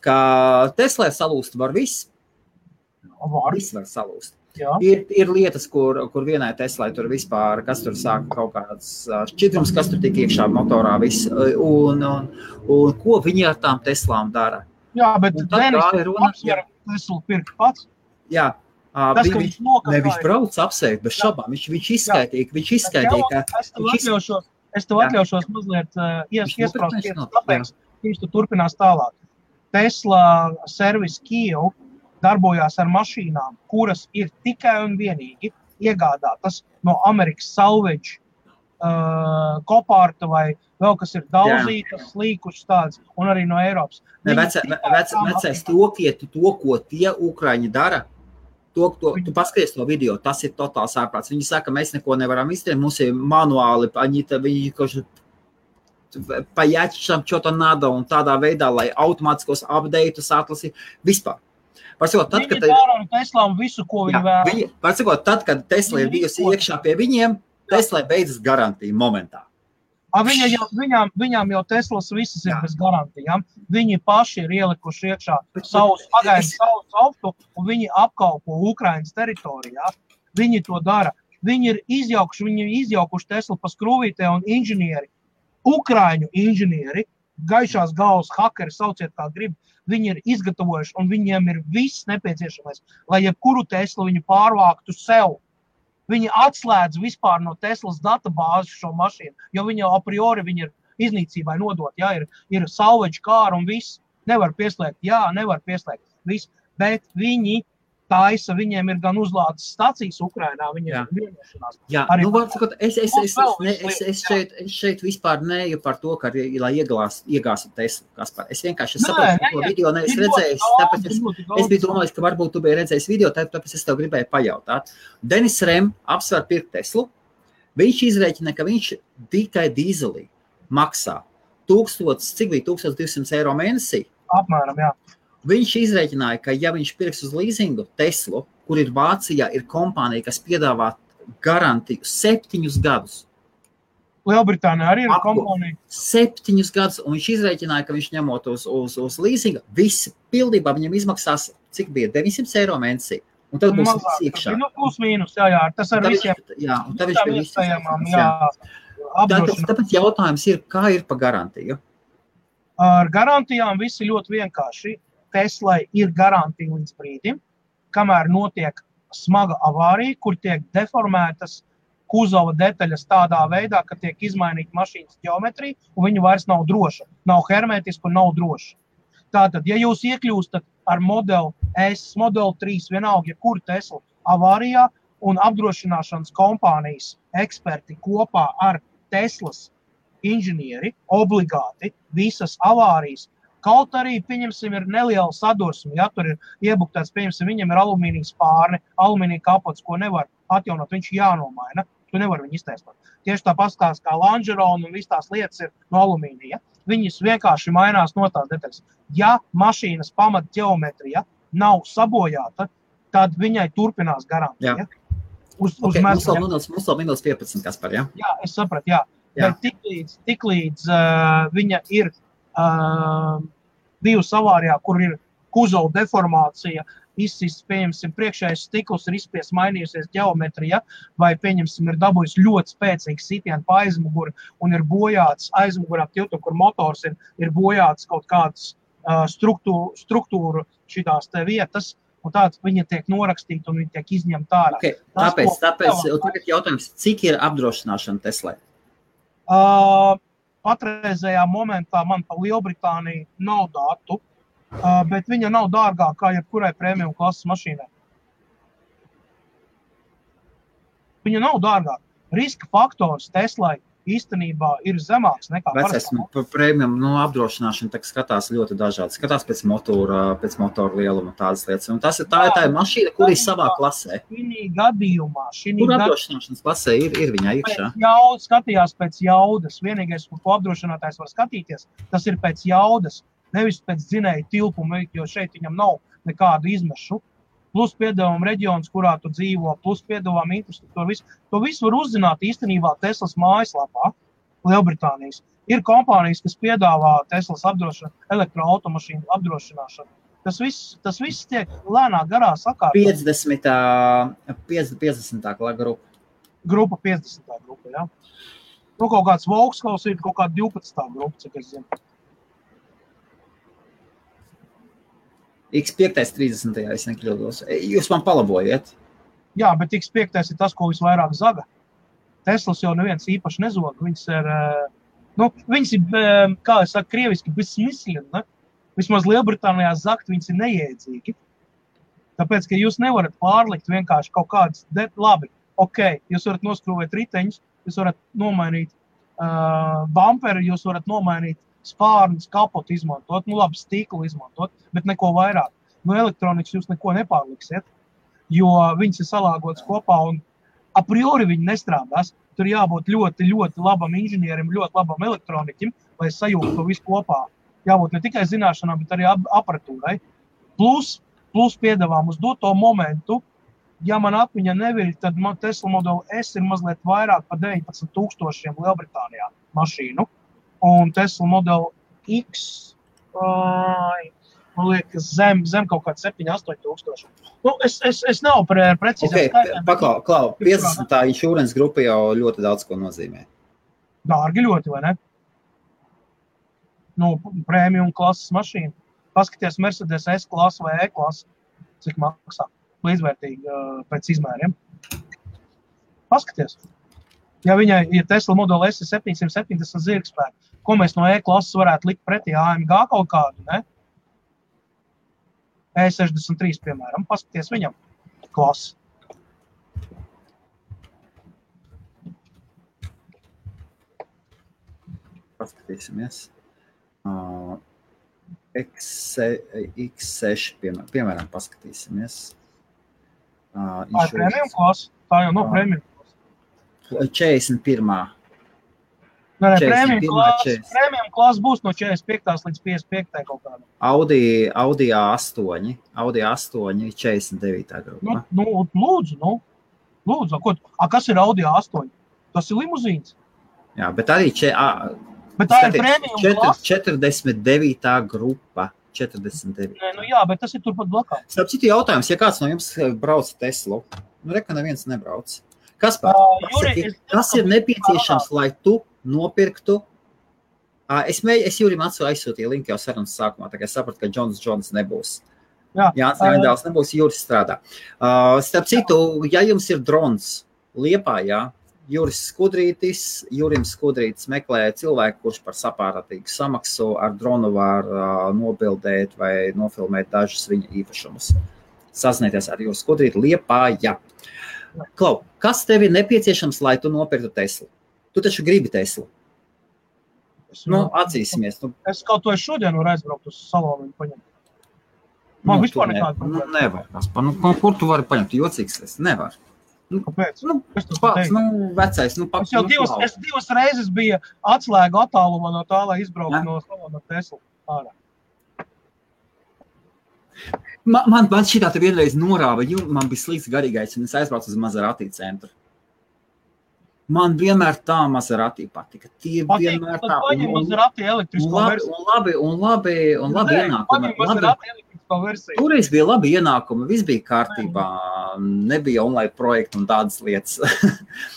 Speaker 2: ka Teslai salūst var viss. Viss var salūst. Ir lietas, kur vienai Teslai tur vispār, kas tur sāk kaut kāds šķidrums, kas tur tik iekšā motorā viss, un ko viņi ar tām Teslām dara.
Speaker 1: Jā, bet Denis apsver Teslu pirkt pats.
Speaker 2: Jā, viņš brauc apsveikt bez šabām, viņš izskaitīja,
Speaker 1: Es tev atļaušos mazliet iesprāst, kāpēc viņš tu turpinās tālāk. Tesla servis Kijeva darbojās ar mašīnām, kuras ir tikai un vienīgi iegādātas no Amerikas salvage kopārta vai vēl kas ir daudzītas, līkušas tādas, un arī no Eiropas.
Speaker 2: Vecais to, ko tie Ukraiņi dara, tu paskaties to video, tas ir totāls ārprāts. Viņi saka, mēs neko nevaram izdarīt, mums ir manuāli, viņi pajačam čo-то надо un tādā veidā, lai automātiskos update'us atlasītu vispār.
Speaker 1: Viņi dara ar Teslām visu, ko viņi vēl.
Speaker 2: Tad, kad Tesla ir bijusi iekšā pie viņiem, Tesla beidzas garantija momentā.
Speaker 1: Viņām jau Teslas visas ir bez garantijām. Viņi paši ir ielikuši iekšā savus auto un viņi apkalpo Ukrainas teritorijā. Viņi to dara. Viņi ir izjaukuši Teslu pa skrūvītē un inženieri, Ukraiņu inženieri, gaišās galvas hakeri, sauciet kā grib, viņi ir izgatavojuši un viņiem ir viss nepieciešamais, lai jebkuru Teslu viņi pārvāktu sev. Viņi atslēdz vispār no Teslas databāzes šo mašīnu, jo viņi jau a priori viņi ir iznīcībai nodot, ir salvage car un viss. Nevar pieslēgt, nevar pieslēgt, viss, bet viņi taisa, viņiem ir gan uzlādes stacijas Ukrainā, viņiem ir vienošanās.
Speaker 2: Jā, es šeit vispār neju par to, ka, lai iegāstu Teslu, Kaspar. Es vienkārši saprotu, ko video neesmu redzējis, tāpēc es biju domājis, ka varbūt tu biji redzējis video, tāpēc es tev gribēju pajautāt. Denis Rem apsver pirkt Teslu, viņš izrēķina, ka viņš tikai dīzelī maksā 1200 eiro mēnesī.
Speaker 1: Apmēram, jā.
Speaker 2: Viņš izrēķināja, ka ja viņš pirks uz līzingu Teslu, kur ir Vācijā, ir kompānija, kas piedāvā garantiju 7 gadus.
Speaker 1: Lielbritānijā arī ir kompānija.
Speaker 2: 7 gadus, un viņš izrēķināja, ka viņš ņemot uz līzinga, visi pildībā viņam izmaksās, cik bija, 900 eiro mēnesī. Un tad būs viss iekšā.
Speaker 1: Plus mīnus, jā, tas ar visiem.
Speaker 2: Jā, un tad viņš bija viss. Tāpēc jautājums ir, kā ir pa garantiju?
Speaker 1: Ar garantijām viss ir ļoti vienkārši. Teslai ir garantija līdz brīdim, kamēr notiek smaga avārija, kur tiek deformētas kuzova detaļas tādā veidā, ka tiek izmainīta mašīnas ģeometrija, un viņa vairs nav droša. Nav hermētiska un nav droša. Tātad, ja jūs iekļūstat ar modeli S, modeli 3, vienalga, ja kur Tesla avārijā, un apdrošināšanas kompānijas eksperti kopā ar Teslas inženieri obligāti visas avārijas, kaut arī, pieņemsim, ir neliela sadursme, ja tur ir iebuktēts, pieņemsim, viņam ir alumīnija spārne, alumīnija kapots, ko nevar atjaunot, viņš jānomaina, tu nevar viņu iztaisnot. Tieši tā pastāst kā Langeron un viss tās lietas ir no alumīnija. Viņas vienkārši mainās no tās detaļas. Ja mašīnas pamat ģeometrija nav sabojāta, tad viņai turpinās garantija. Mums
Speaker 2: vēl minūtes 15, Kaspar, ja?
Speaker 1: Jā, es sapratu, jā. Bet tiklīdz viņa ir bijusi avārijā, kur ir kuzova deformācija, izsists, pieņemsim, priekšējais stikls ir izspies mainījusies ģeometrija, vai, pieņemsim, ir dabūjis ļoti spēcīgs sitienu pa aizmuguri un ir bojāts aizmugurā tiltu, kur motors ir bojāts kaut kādas struktūru šitās te vietas, un tāds viņa tiek norakstīta un viņa tiek izņemta ārā.
Speaker 2: Okay. Tāpēc tagad jautājums, cik ir apdrošināšana Teslai?
Speaker 1: Patreizējā momentā man pa Lielbritāniju nav datu, bet viņa nav dārgākā kā jebkurai premium klases mašīnai. Viņa nav dārgāka. Riska faktors Teslai īstenībā ir zemāks nekā
Speaker 2: parastā. Premium apdrošināšana tak skatās ļoti dažādi. Skatās pēc motora lieluma tādas lietas. Un tā ir mašīna, kur ir savā klasē.
Speaker 1: Šī gadījumā.
Speaker 2: Kur apdrošināšanas klasē ir viņā iekšā?
Speaker 1: Skatījās pēc jaudas. Vienīgais, ko apdrošinātājs var skatīties, tas ir pēc jaudas. Nevis pēc dzinēja tilpuma, jo šeit viņam nav nekādu izmešu. Plus piedevuma reģions, kurā tu dzīvo, plus piedevuma infrastruktūra. To visu var uzzināt īstenībā Teslas mājaslapā, Lielbritānijas. Ir kompānijas, kas piedāvā Teslas elektroautomašīnu apdrošināšanu. Tas viss tiek lēnā garā sakārtot.
Speaker 2: 50. grupa.
Speaker 1: Grupa 50. grupa, jā. Nu, kaut kāds Volkswagen ir kaut kāda 12. grupa, cik es zinu.
Speaker 2: X5 30. ja es nekļūdos. Jūs man palabojiet.
Speaker 1: Jā, bet X5 ir tas, ko visvairāk zaga. Teslas jau neviens īpaši nezog. Viņas ir, kā es saku, krieviski besmisleni, ne? Vismaz Lielbritānijā zakt viņas ir neiedzīgi. Tāpēc, ka jūs nevarat pārlikt vienkārši kaut kādas, labi, jūs varat noskrūvēt riteņus, jūs varat nomainīt bumperi, jūs varat nomainīt spārnus, kapotu izmantot, labi, stiklu izmantot, bet neko vairāk. No elektronikas jūs neko nepārliksiet, jo viņas ir salāgotas kopā un a priori viņi nestrādās. Tur jābūt ļoti, ļoti labam inženierim, ļoti labam elektroniķim, lai sajūtu to visu kopā. Jābūt ne tikai zināšanām, bet arī aparatūrai. Plus piedāvām uz doto momentu, ja man atmiņa neviļ, tad man Tesla modeli S ir mazliet vairāk pa 19,000 Lielbritānijā mašīnu. Un Tesla modeli X man liekas, zem kaut kāds 7-8 tūkstoši. Nu, es nav precīzāk skaitām.
Speaker 2: Paklau, 50. insurance grupa jau ļoti daudz ko nozīmē.
Speaker 1: Dārgi ļoti, vai ne? Nu, premium klases mašīna. Paskaties Mercedes S-klasa vai E-klasa, cik maksā. Līdzvērtīgi pēc izmēriem. Paskaties. Ja Tesla Model S ir 770 zirgspēku, ko mēs no E-klases varētu likt pretī AMG kaut kādu, ne? E63, piemēram, paskaties viņam klasi.
Speaker 2: Paskatīsimies. X6, piemēram, paskatīsimies.
Speaker 1: Tā ir premium klasa? Tā jau nav premium klasa.
Speaker 2: 41.
Speaker 1: Nē, premium klasa būs no 45. līdz 55. kaut kādā.
Speaker 2: Audi A8, 49. grupa.
Speaker 1: Lūdzu. Kas ir Audi A8? Tas ir limuzīns.
Speaker 2: Jā, bet arī
Speaker 1: bet tā ir premium klasa.
Speaker 2: 49. grupa. 49.
Speaker 1: Nē, jā, bet tas ir turpat blakā.
Speaker 2: Starp citu jautājums, ja kāds no jums brauc Teslu, reka neviens nebrauc. Kaspar, kas ir nepieciešams, lai tu nopirktu? Es Jurim aizsūtīju linku jau sarunas sākumā, tā kā sapratu, ka Jones nebūs. Jānis Raidāls nebūs, Juris strādā. Starp citu, ja jums ir drons Liepājā, Jurim Skudrītis meklē cilvēku, kurš par sapāratīgu samaksu ar dronu var nobildēt vai nofilmēt dažus viņa īpašumus. Sazināties ar Juris Skudrīti Liepājā. Klau, kas tev ir nepieciešams, lai tu nopirktu Teslu? Tu taču gribi Teslu. Atzīsimies.
Speaker 1: Es kaut to šodien varu aizbraukt uz salonu un paņemt. Man vispār nekāda problēma.
Speaker 2: Nevar. Kur tu vari paņemt? Jocīgs es. Nevar.
Speaker 1: Kāpēc?
Speaker 2: Vecais.
Speaker 1: Es divas reizes bija atslēgu attālumā no tā, lai izbrauktu no salona Teslu ārā.
Speaker 2: Man šitā te vienreiz norāva, man bija slikts garīgais, un es aizbraucu uz Maserati centru. Man vienmēr tā Maserati patika. Vienmēr tā.
Speaker 1: Paņem Maserati elektrisko versiju.
Speaker 2: Un labi ienākumi.
Speaker 1: Paņem Maserati elektrisko versiju.
Speaker 2: Toreiz bija labi ienākumi, viss bija kārtībā. Nebija online projekti un tādas lietas.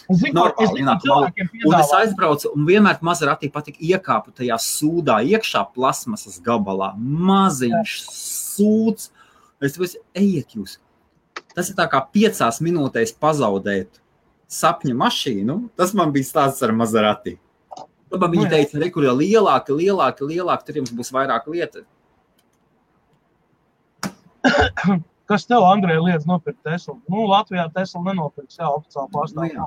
Speaker 2: Normāli ienākumi. Un es aizbraucu, un vienmēr Maserati patika iekāpu tajā sūdā, iekšā plasmasas gabalā. Maziņš sūds. Es teicu, ejiet jūs. Tas ir tā kā 5 minūtēs pazaudēt sapņa mašīnu. Tas man bija stāsts ar Maserati. Tad viņi teica, kur ir lielāki, tur jums būs vairāk lieta.
Speaker 1: Kas tev, Andrej, liedz nopirkt Teslu? Latvijā Tesla nenopirks, oficiāli pārstāvjā.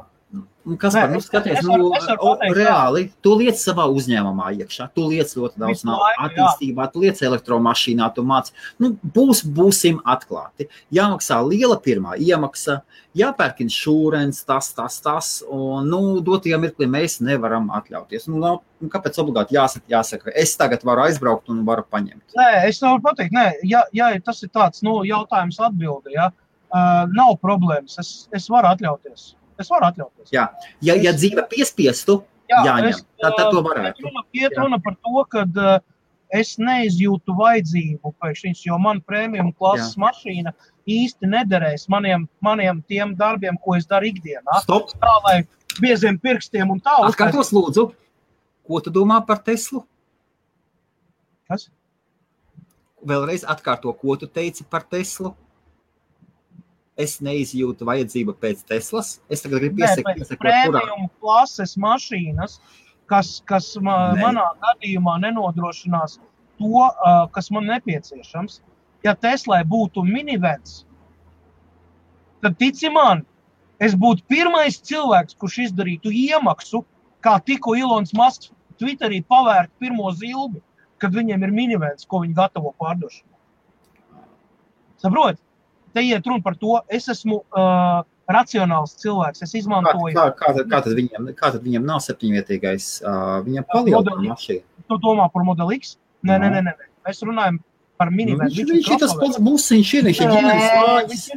Speaker 2: Kaspar, skaties, reāli, tu liec savā uzņēmumā iekšā, tu liec ļoti daudz attīstībā, tu liec elektromašīnā, tu māc. Būsim atklāti. Jāmaksā liela pirmā iemaksa, jāpērk insurance, tas, un, dotajā mirklī mēs nevaram atļauties. Kāpēc obligāti jāsaka, es tagad varu aizbraukt un varu paņemt?
Speaker 1: Nē, es nevaru pateikt, ja tas ir tāds, jautājums atbildi, nav problēmas, es varu atļauties.
Speaker 2: Jā, ja dzīve piespiestu, jāņem, tad to varētu.
Speaker 1: Iet runa par to, ka es neizjūtu vajadzību pēc viņas, jo man premium klases mašīna īsti nederēs maniem tiem darbiem, ko es daru ikdienā.
Speaker 2: Stop!
Speaker 1: Tā, lai bieziem pirkstiem un tā.
Speaker 2: Atkārtos lūdzu, ko tu domā par Teslu?
Speaker 1: Kas?
Speaker 2: Vēlreiz atkārto, ko tu teici par Teslu? Es neizjūtu vajadzību pēc Teslas. Es tagad gribu piesakot,
Speaker 1: premium klases mašīnas, kas manā gadījumā nenodrošinās to, kas man nepieciešams. Ja Teslai būtu minivens, tad tici man, es būtu pirmais cilvēks, kurš izdarītu iemaksu, kā tikko Ilons Masks Twitterī pavērt pirmo zilbi, kad viņiem ir minivens, ko viņi gatavo pārdošanā. Saprot? Te iet runa par to, es esmu racionāls cilvēks, es izmantoju...
Speaker 2: Kā tad viņam nav 7-vietīgais, viņam palielina mašīna?
Speaker 1: Tu domā par Model X? Nē. Mēs runājam par minivenu.
Speaker 2: Viņš ir tas pats busiņš, viņš ir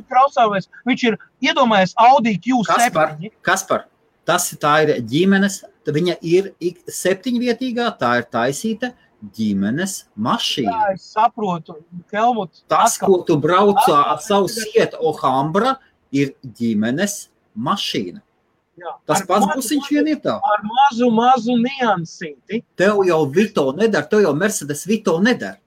Speaker 1: crossovers, viņš ir, iedomājies, Audi Q7.
Speaker 2: Kaspar, Tā ir ģimenes, viņa ir 7-vietīgā, tā ir taisīta ģimenes mašīna.
Speaker 1: Jā, es saprotu, Helmut.
Speaker 2: Tas, ko tu brauc ar savu sietu Alhambra, ir ģimenes mašīna.
Speaker 1: Jā.
Speaker 2: Tas pats busiņš vien ir tā.
Speaker 1: Ar mazu niansīti.
Speaker 2: Tev jau Vito nedara, tev jau Mercedes Vito nedara.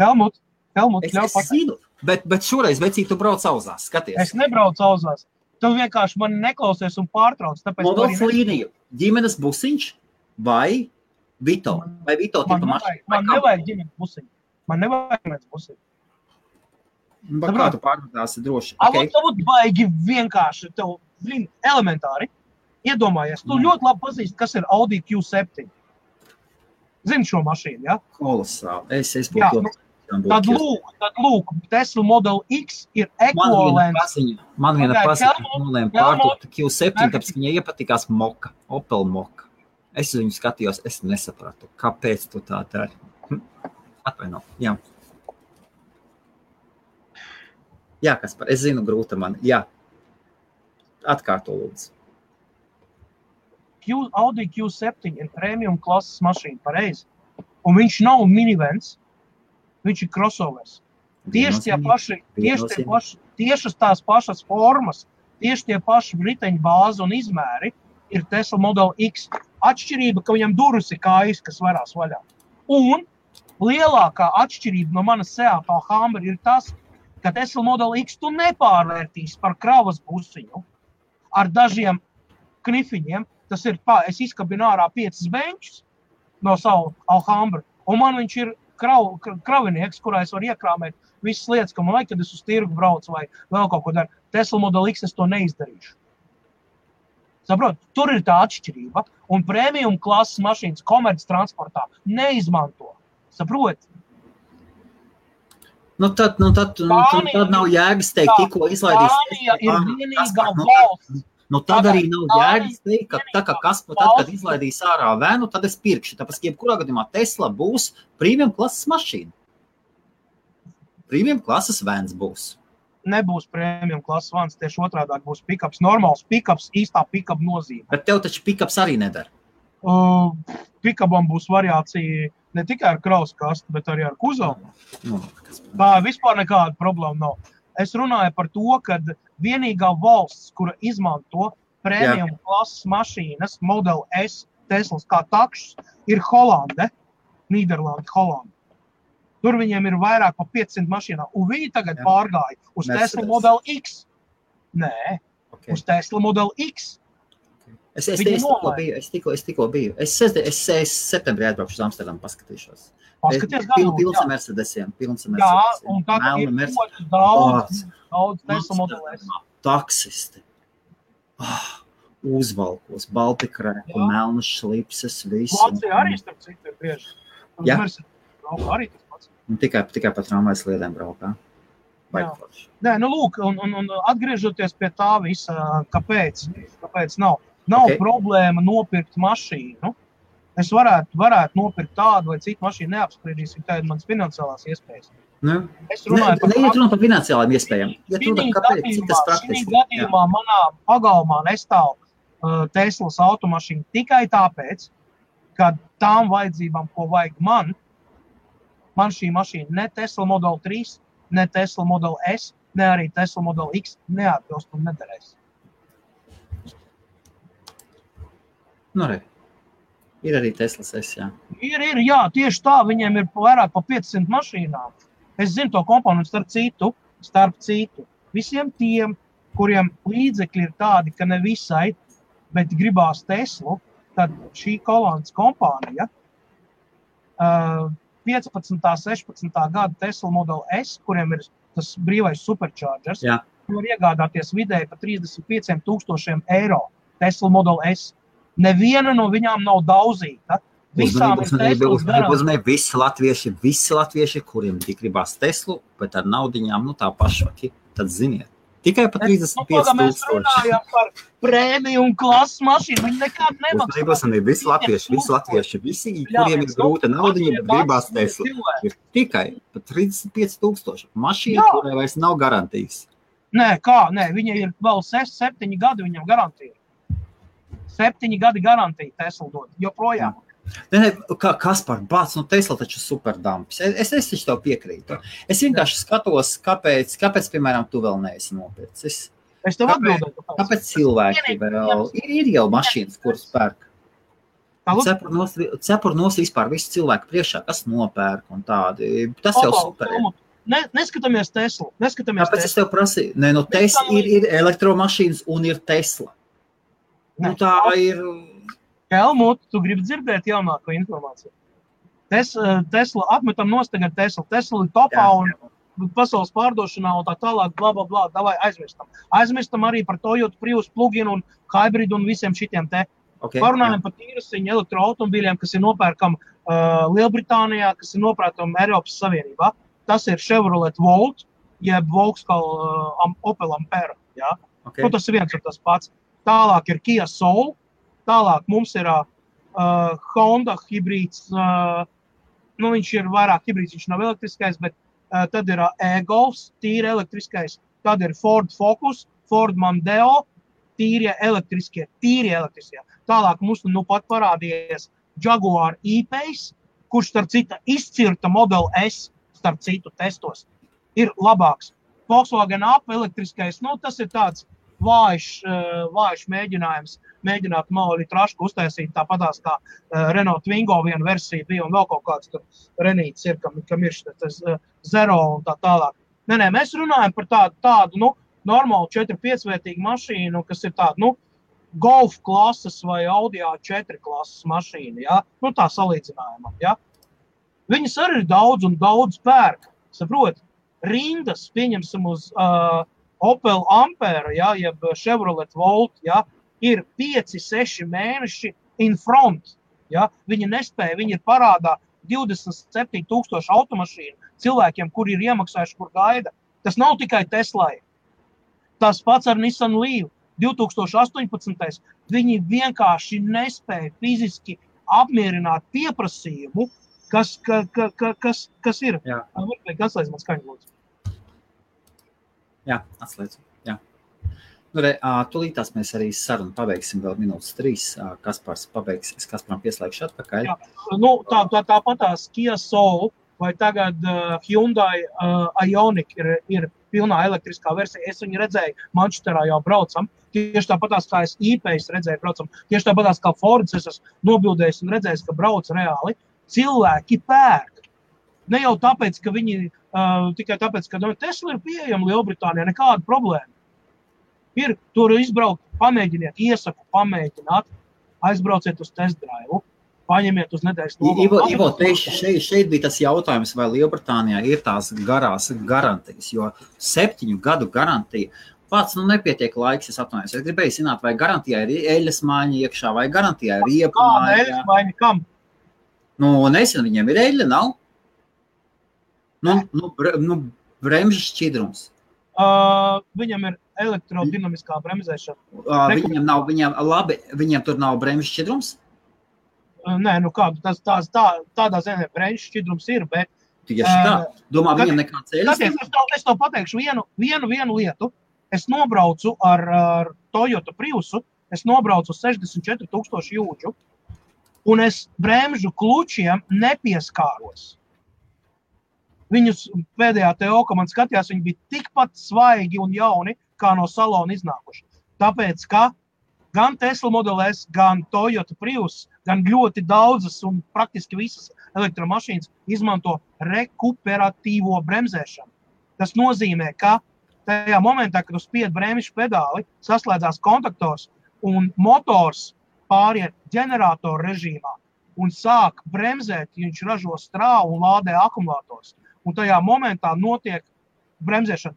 Speaker 1: Helmut,
Speaker 2: Es zinu, bet šoreiz, vecīt, tu brauc auzās, skaties.
Speaker 1: Es nebraucu auzās. Tu vienkārši mani neklausies un pārtrauc.
Speaker 2: Modelis līniju, ģimenes busiņš vai Vito? Vai Vito tipa mašīna?
Speaker 1: Man nevajag ģimenes busiņu. Man nevajag ģimenes busiņu.
Speaker 2: Kā tu pārvadāsi droši?
Speaker 1: Tev baigi vienkārši, tev elementāri. Iedomājies, tu ļoti labi pazīsti, kas ir Audi Q7. Zini šo mašīnu, ja?
Speaker 2: Kolosāli. Es būtu ļoti.
Speaker 1: Tad lūk, Tesla Model X ir ekvivalents.
Speaker 2: Man viena paziņa nolēma pārdot Q7, tāpēc viņai iepatikās Moka, Opel Moka. Es uz viņu skatījos, es nesapratu, kāpēc tu tā dari. Atvaino, jā. Jā, Kaspar, es zinu, grūta man, jā. Atkārto lūdzu.
Speaker 1: Audi Q7 ir premium klases mašīna, pareizi. Un viņš nav minivens. Viņš ir crossovers. Tieši tās pašas formas, tieši tie paši riteņu bāzi un izmēri ir Tesla Model X. Atšķirība, ka viņam durvis ir kājas, kas varās vaļā. Un lielākā atšķirība no manas Seat Alhambra ir tas, ka Tesla Model X tu nepārvērtīs par kravas busiņu ar dažiem knifiņiem. Tas ir es izkabinu ārā 5 benčus no savu Alhambra, un man viņš ir kravinieks, kurā es varu iekrāmēt visas lietas, ka man vajag, kad es uz tirgu braucu vai vēl kaut ko daru. Tesla Model X es to neizdarīšu. Saprot, tur ir tā atšķirība, un premium klases mašīnas komerc transportā neizmanto. Saprot?
Speaker 2: Tad nav jēgas teikt, tikko izlaidīs.
Speaker 1: Spānija ir vienīgā valsts.
Speaker 2: Tad arī nav jēgas teikt, ka tad, kad izlaidīs ārā vēnu, tad es pirkšu. Tāpēc, jebkurā gadījumā Tesla būs premium klases mašīna. Premium klases vēns būs.
Speaker 1: Nebūs premium klases vēns, tieši otrādāk būs pickups. Normāls pickups, īstā pickup nozīme.
Speaker 2: Bet tev taču pickups arī nedara.
Speaker 1: Pickupam būs variācija ne tikai ar kravas kastu, bet arī ar kuzavu. Tā vispār nekāda problēma nav. Es runāju par to, ka vienīgā valsts, kura izmanto premium klases mašīnas, Model S, Teslas kā takšs, ir Holande, Nīderlanda, Holanda. Tur viņiem ir vairāk pa 500 mašīnām, un viņi tagad pārgāja uz Tesla Model X. Nē, uz Tesla Model X.
Speaker 2: Es tikko biju. Es septembrī atbraukšu uz Amsterdamu, paskatīšos. Pilns ar Mercedesiem.
Speaker 1: Jā, un tagad ir ļoti daudz Tesla Model S.
Speaker 2: Taksisti. Uzvalkos, baltikrēku, melnas šlipses, visu.
Speaker 1: Vācija arī starp citu ir bieži.
Speaker 2: Jā.
Speaker 1: Arī tas pats.
Speaker 2: Un tikai pa tramvajas sliedēm braukā.
Speaker 1: Nē, lūk, un atgriežoties pie tā visa, kāpēc nav. Nav problēma nopirkt mašīnu. Es varētu nopirkt tādu vai citu mašīnu, neapspriedīsim, tā ir mans finansiālās iespējas. Es runāju
Speaker 2: par finansiālām iespējām.
Speaker 1: Šī gadījumā manā pagalmā nestāv Teslas automašīna tikai tāpēc, ka tām vajadzībām, ko vajag man šī mašīna ne Tesla Model 3, ne Tesla Model S, ne arī Tesla Model X neatbilst un nederēs.
Speaker 2: Ir arī Teslas S, jā.
Speaker 1: Jā, tieši tā, viņiem ir vairāk pa 500 mašīnām. Es zinu to komponentu starp citu. Visiem tiem, kuriem līdzekļi ir tādi, ka ne visai, bet gribās Teslu, tad šī Holandas kompānija 15. 16. gada Tesla Model S, kuriem ir tas brīvais superchargers, var iegādāties vidēji pa 35,000 eiro Tesla Model S. Neviena no viņām nav daudzīta. Visām ir Teslas garantija.
Speaker 2: Visi latvieši, kuriem tik gribās Teslu, bet ar naudiņām, tā paša, tad ziniet. Tikai pa 35,000.
Speaker 1: Mēs runājam par premium klases mašīnu, viņi nekad nemaksā.
Speaker 2: Visi latvieši, kuriem ir grūta naudiņa, bet gribās Teslu. Ir tikai pa 35,000 mašīna, kurai vairs nav garantijas.
Speaker 1: Nē, viņa ir vēl 7 gadi viņam garantija. 7 gadi garantija Tesla dod, joprojām.
Speaker 2: Ne, Kaspar, bāc, Tesla taču superdampis. Es taču tev piekrītu. Es vienkārši skatos, kāpēc, piemēram, tu vēl neesi nopircis.
Speaker 1: Es tev atbildēju.
Speaker 2: Kāpēc cilvēki vēl ir jau mašīnas, kuras pērk? Cepur nos vispār visu cilvēku priekšā, kas nopērk un tādi. Tas jau super.
Speaker 1: Neskatāmies Tesla.
Speaker 2: Tāpēc es tev prasīju. Nē, Tesla ir elektromašīnas un ir Tesla. Tā ir...
Speaker 1: Helmut, tu gribi dzirdēt jaunāko informāciju. Tesla, atmetam nost tagad Tesla. Tesla ir topā un pasaules pārdošanā un tā tālāk, bla, bla, bla, davai aizmirstam. Aizmirstam arī par Toyota Prius plug-in un hybrid un visiem šitiem te. Parunājam par tīrasiņu elektroautomobīļiem, kas ir nopērkam Lielbritānijā, kas ir nopērkam Eiropas Savienībā. Tas ir Chevrolet Volt, jeb Vauxhall Opel Ampera. Ja? Tas ir viens un tas pats. Tālāk ir Kia Soul. Tālāk mums ir Honda hibrīds, viņš ir vairāk hibrīds, viņš nav elektriskais, bet tad ir e-Golfs, tīri elektriskais, tad ir Ford Focus, Ford Mondeo, tīri elektriskie. Tālāk mums pat parādījies Jaguar E-Pace, kurš starp citu izcirta Model S, starp citu testos, ir labāks. Volkswagen Up elektriskais, tas ir tāds vājš mēģinājums. Mēģināt mali trašku uztaisīt tāpatās kā Renault Twingo viena versija bija un vēl kaut kāds tur Renīts ir, kam ir šitas Zero un tā tālāk. Nē, mēs runājam par tādu normālu 4-5 vietīgu mašīnu, kas ir tādu, Golf klases vai Audi A4 klases mašīna, ja? Tā salīdzinājumā, ja? Viņas arī ir daudz un daudz pērk, saprot, rindas, pieņemsim uz Opel Ampera, ja? Jeb Chevrolet Volt, ja? Ir 5-6 mēneši in front. Ja? Viņi nespēja, viņi ir parādā 27,000 automašīnu cilvēkiem, kuri ir iemaksājuši, kur gaida. Tas nav tikai Teslai. Tas pats ar Nissan Leaf 2018. Viņi vienkārši nespēja fiziski apmierināt pieprasījumu, kas ir.
Speaker 2: Jā.
Speaker 1: Atslēdz man skaņu, lūdzu.
Speaker 2: Jā, atslēdz. Jā. Tūlītās mēs arī sarunu pabeigsim vēl minūtes 3. Kaspars pabeigs, es Kasparam pieslēgšu atpakaļ.
Speaker 1: Jā, tāpatās Kia Soul vai tagad Hyundai Ioniq ir pilnā elektriskā versija. Es viņu redzēju, Manchesterā jau braucam. Tieši tāpatās kā es E-Pace redzēju braucam. Tieši tāpatās kā Fords es esmu nobildējis un redzējis, ka brauc reāli. Cilvēki pērk. Ne jau tāpēc, ka viņi, tikai tāpēc, ka Tesla ir pieejama Lielbritānijā, nekāda problēma. Ir, tur izbraukt, pamēģiniet, iesaku pamēģināt, aizbrauciet uz test drive, paņemiet uz nedēļas nogalu.
Speaker 2: Ivo, šeit bija tas jautājums, vai Lielbritānijā ir tās garās garantijas, jo 7 gadu garantija, pats nepietiek laiks, es atvainojos. Es gribēju zināt, vai garantijā ir eļas maiņa iekšā, vai garantijā ir riepu maiņa.
Speaker 1: Kāda eļas maiņa, kam?
Speaker 2: Nezinu, viņiem ir eļa, nav? Bremžu šķidrums.
Speaker 1: Viņam ir elektrodinamiskā bremzēšana.
Speaker 2: Viņiem tur nav bremžu šķidrums?
Speaker 1: Nē, tādā ziņā bremžu šķidrums ir, bet...
Speaker 2: Tieši tā. Domā, viņam nekāds eļas?
Speaker 1: Es tev pateikšu vienu lietu. Es nobraucu ar Toyota Priusu, es nobraucu 64,000 jūdžu, un es bremžu klučiem nepieskāros. Viņus pēdējā TO, ka man skatījās, viņi bija tikpat svaigi un jauni, kā no salona iznākuši. Tāpēc, ka gan Tesla Model S, gan Toyota Prius, gan ļoti daudzas un praktiski visas elektromašīnas izmanto rekuperatīvo bremzēšanu. Tas nozīmē, ka tajā momentā, kad uz spied bremžu pedāli, saslēdzās kontaktors un motors pāriet ģeneratoru režīmā un sāk bremzēt, ja viņš ražo strāvu un lādē akumulators. Un tajā momentā notiek bremzēšana.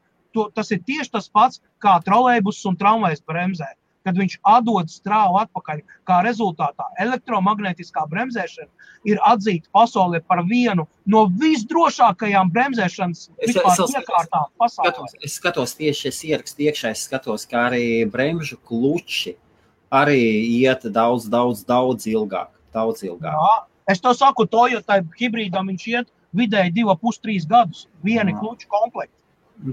Speaker 1: Tas ir tieši tas pats, kā trolejbus un tramvajs bremzē. Kad viņš atdod strāvu atpakaļ, kā rezultātā elektromagnētiskā bremzēšana ir atzīta pasaulē par vienu no visdrošākajām bremzēšanas iekārtām pasaulē.
Speaker 2: Es skatos tieši, es ierakstu iekšā, es skatos, kā arī bremžu kluči arī iet daudz ilgāk.
Speaker 1: Jā, es to saku, Toyota hibrīdam viņš iet vidēji 2,5-3 gadus, vieni kluču komplekti.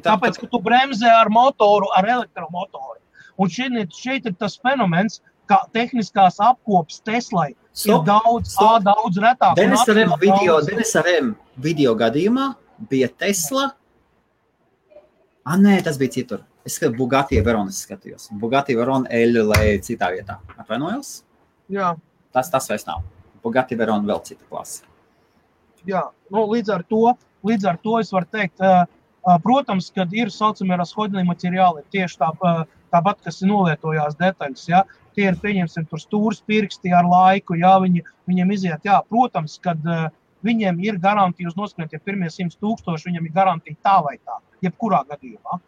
Speaker 1: Tāpēc, ka tu bremzē ar motoru, ar elektromotoru. Un šeit ir tas fenomens, ka tehniskās apkops Teslai ir daudz retāk.
Speaker 2: Denisa Rem video gadījumā bija Tesla. Nē, tas bija citur. Es skatījos Bugatti Veyronas skatījos. Bugatti Veyron L citā vietā. Atvainojos?
Speaker 1: Jā.
Speaker 2: Tas vairs nav. Bugatti Veyron vēl cita klasa.
Speaker 1: Jā, līdz ar to es varu teikt, protams, kad ir saucamie rashodņi materiāli, tieši tāpat, kas ir nolietojās detaļas, ja? Tie ir, pieņemsim, tur stūrs pirksti ar laiku, ja? Viņiem iziet, jā, protams, kad viņiem ir garantija uz noskaņot, ja pirmie 100,000, viņiem ir garantija tā vai tā, jebkurā gadījumā.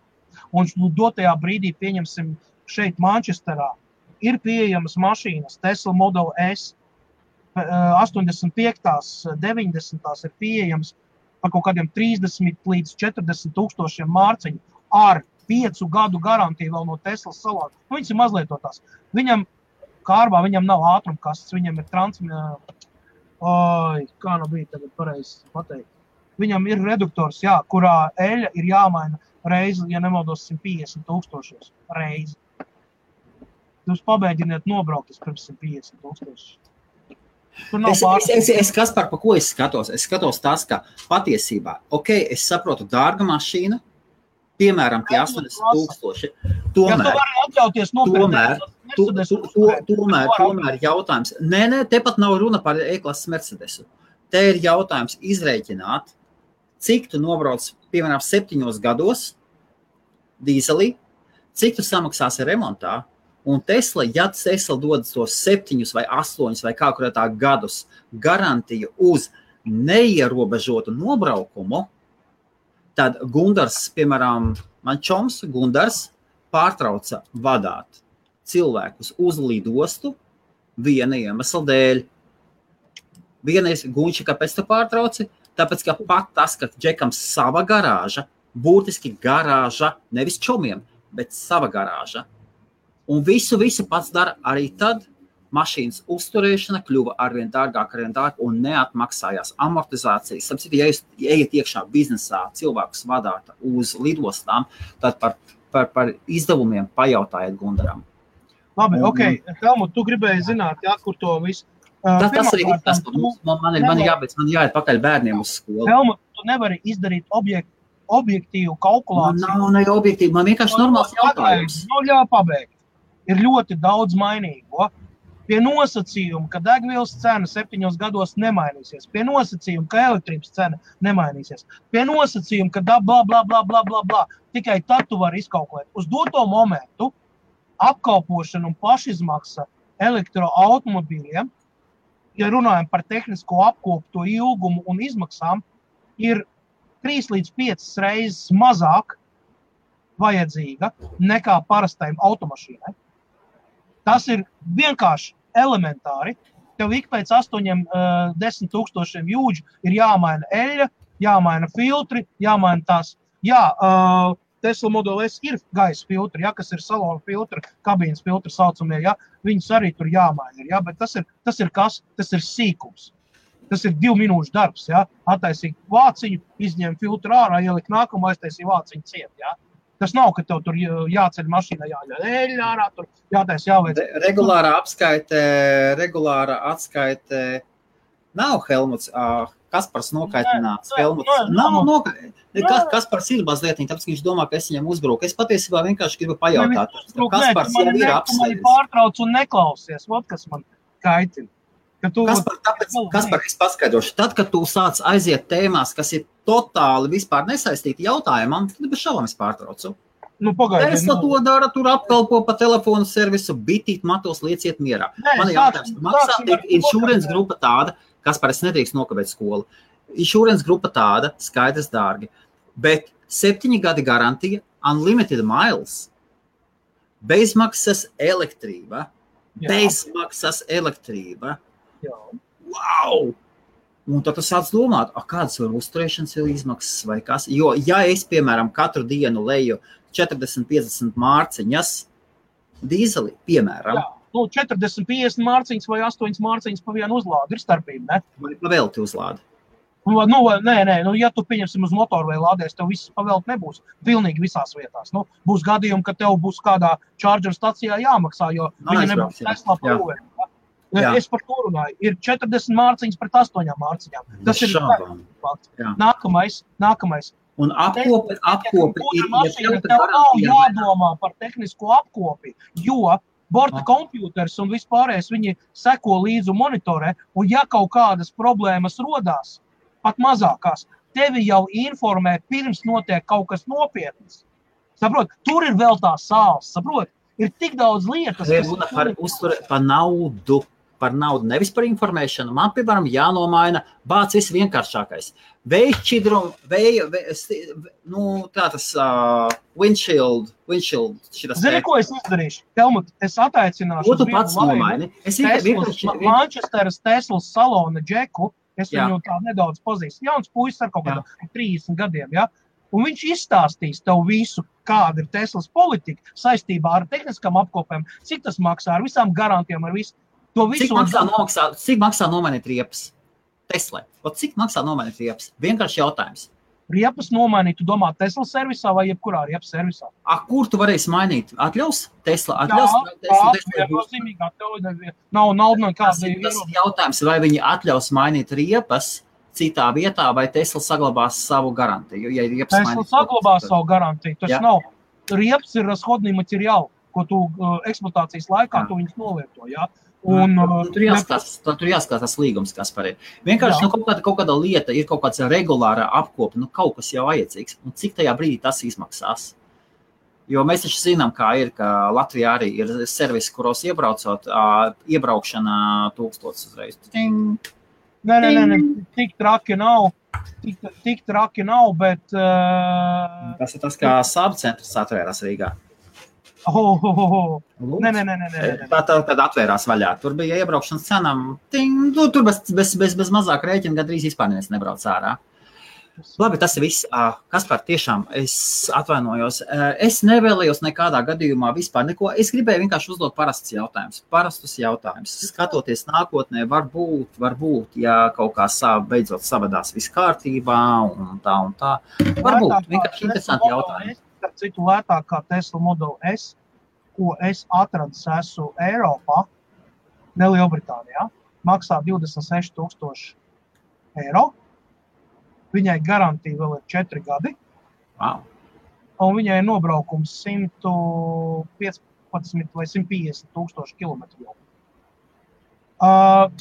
Speaker 1: Un dotajā brīdī, pieņemsim, šeit Manchesterā ir pieejamas mašīnas, Tesla Model S, 85, 90 ir pieejams par kaut kādiem 30 līdz 40,000 mārciņu ar 5 gadu garantiju vēl no Teslas salām. Viņas ir mazlietotās. Viņam kārbā, viņam nav ātrumkastes, viņam ir kā nu bija tagad pareizi pateikt. Viņam ir reduktors, jā, kurā eļa ir jāmaina reizi, ja nemaldos 150,000 reizi. Jūs pabēģiniet nobraukties pirms 150,000.
Speaker 2: Es Kaspar, pa ko es skatos? Es skatos tas, ka patiesībā, es saprotu, dārga mašīna, piemēram, tie 80,000. Tomēr jautājums. Nē, tepat nav runa par E-klases Mercedesu. Te ir jautājums izrēķināt, cik tu nobrauc, piemēram, 7 gados dīzelī, cik tu samaksāsi remontā, un Tesla, ja Tesla dodas tos 7 vai 8 vai kā kurētā gadus garantiju uz neierobežotu nobraukumu, tad Gundars, piemēram, man čoms Gundars pārtrauca vadāt cilvēkus uz lidostu viena iemesla dēļ. Vienreiz Gunči, kāpēc tu pārtrauci? Tāpēc, ka pat tas, ka Džekam sava garāža, būtiski garāža, nevis čomiem, bet sava garāža. Un visu pats dara arī tad, mašīnas uzturēšana kļuva arvien dārgāk un neatmaksājās amortizācijas. Sapratu, ja jūs ejat iekšā biznesā, cilvēkus vadāt uz lidostām, tad par izdevumiem pajautājiet Gundaram.
Speaker 1: Labi, Helmut, tu gribēji zināt, jā, kur to visu.
Speaker 2: Tas arī ir tas, man jāiet pakaļ bērniem uz skolu.
Speaker 1: Helmut, tu nevari izdarīt objektīvu kalkulāciju.
Speaker 2: Nav objektīvi, man vienkārši normāls jautājums.
Speaker 1: Pabeigt. Ir ļoti daudz mainīgo. Pie nosacījuma, ka degvielas cena 7 gados nemainīsies. Pie nosacījuma, ka elektrības cena nemainīsies. Pie nosacījuma, ka bla. Tikai tad tu vari izkalkulēt. Uz doto momentu apkalpošana un pašizmaksa elektroautomobīļiem, ja runājam par tehnisko apkopu, to ilgumu un izmaksām, ir 3 līdz 5 reizes mazāk vajadzīga nekā parastajam automašīnai. Tas ir vienkārši elementāri. Tev ik pēc 8-10,000 jūdžu ir jāmaina eļļa, jāmaina filtri, jāmaina tās. Jā, Tesla Model S ir gaisa filtri, ja, kas ir salona filtri, kabīnes filtri saucamie, ja, viņus arī tur jāmaina, ja, bet tas ir kas? Tas ir sīkums. Tas ir 2 minūšu darbs, ja, attaisīt vāciņu, izņemt filtru ārā, ielikt nākumu, aiztaisīt vāciņu ciet, ja. Tas nav, ka tev tur jāceļ mašīnā, jāļauj ārā, tur jātais jāveic.
Speaker 2: Regulāra atskaite nav Helmuts, Kaspars nokaitināts. Helmuts nav nokaitināts. Kaspars ir mazlietiņ, tāpēc, ka viņš domā, ka es viņam uzbruku. Es patiesībā vienkārši gribu pajautāt. Kaspars jau ir apsveicis.
Speaker 1: Tu pārtrauc un neklausies, kas man kaitina.
Speaker 2: Kaspar, es paskaidrošu. Tad, kad tu sāc aiziet tēmās, kas ir totāli vispār nesaistīti jautājumam, tad bez šaubām es pārtraucu. Tesla to dara, tur apkalpo pa telefonu servisu, bitīt matos, lieciet mierā. Man ir jautājums, maksā tiek insurance grupa tāda, Kaspar, es nedrīkst nokavēt skolu. Insurance grupa tāda, skaidrs dārgi, bet 7 gadi garantija, unlimited miles, bezmaksas elektrība. Wow! Un tad tu sāc domāt, kādas var uzturēšanas izmaksas vai kas. Jo, ja es, piemēram, katru dienu leju 40-50 mārciņas dīzeli, piemēram.
Speaker 1: Jā, 40-50 mārciņas vai 8 mārciņas pa vienu uzlādi ir starpība, ne?
Speaker 2: Vai pa velti uzlādi.
Speaker 1: Ja tu pieņemsim uz motoru vai lādēs, tev viss pavēlt nebūs. Pilnīgi visās vietās. Būs gadījumi, ka tev būs kādā charger stacijā jāmaksā, jo viņi nebūs Tesla par Es par to runāju. Ir 40 mārciņas pret 8 mārciņām. Tas ir fakts. Nākamais.
Speaker 2: Un apkopi
Speaker 1: ir tev nav jādomā par tehnisko apkopi, jo borta kompjūters un vispārējais viņi seko līdzi un monitorē, un ja kaut kādas problēmas rodās, pat mazākās, tevi jau informē pirms notiek kaut kas nopietnas. Saprot, tur ir vēl tā sāls, saprot, ir tik daudz lietas,
Speaker 2: par naudu, nevis par informēšanu. Man, piemēram, jānomaina bāc viss vienkāršākais. Vējšķidrum, windshield, šitas.
Speaker 1: Zini, ko es izdarīšu? Helmut, es ataicināšu
Speaker 2: ko tu pats nomaini?
Speaker 1: Manchesteras Teslas salona džeku, es viņu tā nedaudz pazīstu. Jauns puisis ar kaut kādā 30 gadiem, ja? Un viņš izstāstīs tev visu, kāda ir Teslas politika saistībā ar tehniskām apkopēm, cik tas maksā, ar visām garantijām, ar visu.
Speaker 2: Cik maksā nomainīt riepas? Tesla. Cik maksā nomainīt riepas? Vienkārši jautājums.
Speaker 1: Riepas nomainīt, tu domā Tesla servisā vai jebkurā riepas servisā?
Speaker 2: Kur tu varēsi mainīt? Atļaus? Tesla?
Speaker 1: Viennozīmīgi atļauj. Nav nekāda.
Speaker 2: Tas ir jautājums, vai viņi atļaus mainīt riepas citā vietā, vai Tesla saglabās savu garantiju? Ja
Speaker 1: Tesla saglabās savu garantiju. Tas nav. Riepas ir rashodnī materiāli, ko tu eksploatācijas laikā tu viņus novieto, jā.
Speaker 2: Tur jāskatās līgums, kas par ir. Vienkārši kaut kāda lieta ir kaut kāds regulārā apkopa, kaut kas jau vajadzīgs. Un cik tajā brīdī tas izmaksās? Jo mēs taču zinām, kā ir, ka Latvijā arī ir servisi, kuros iebraucot, iebraukšana 1000 uzreiz.
Speaker 1: Nē, tik traki nav, bet...
Speaker 2: Tas ir tas, kā Saab centrs atvērās Rīgā.
Speaker 1: Nē.
Speaker 2: Tad atvērās vaļā. Tur bija iebraukšanas cenām. Tur bez mazāk rēķina gandrīz vispār neviens nebrauc ārā. Labi, tas ir viss. Kaspar, tiešām, es atvainojos. Es nevēlējos nekādā gadījumā vispār neko. Es gribēju vienkārši uzdot parastus jautājumus. Skatoties nākotnē, varbūt, ja kaut kā beidzot savadās viss kārtībā un tā. Varbūt, vienkārši interesanti jautājumi.
Speaker 1: Citu lētāk kā Tesla Model S, ko es atradis esmu Eiropā, ne Lielbritānijā, maksā 26,000 eiro. Viņai garantija vēl ir 4 gadi.
Speaker 2: Wow.
Speaker 1: Un viņai ir nobraukums 115 vai 150 tūkstoši kilometru.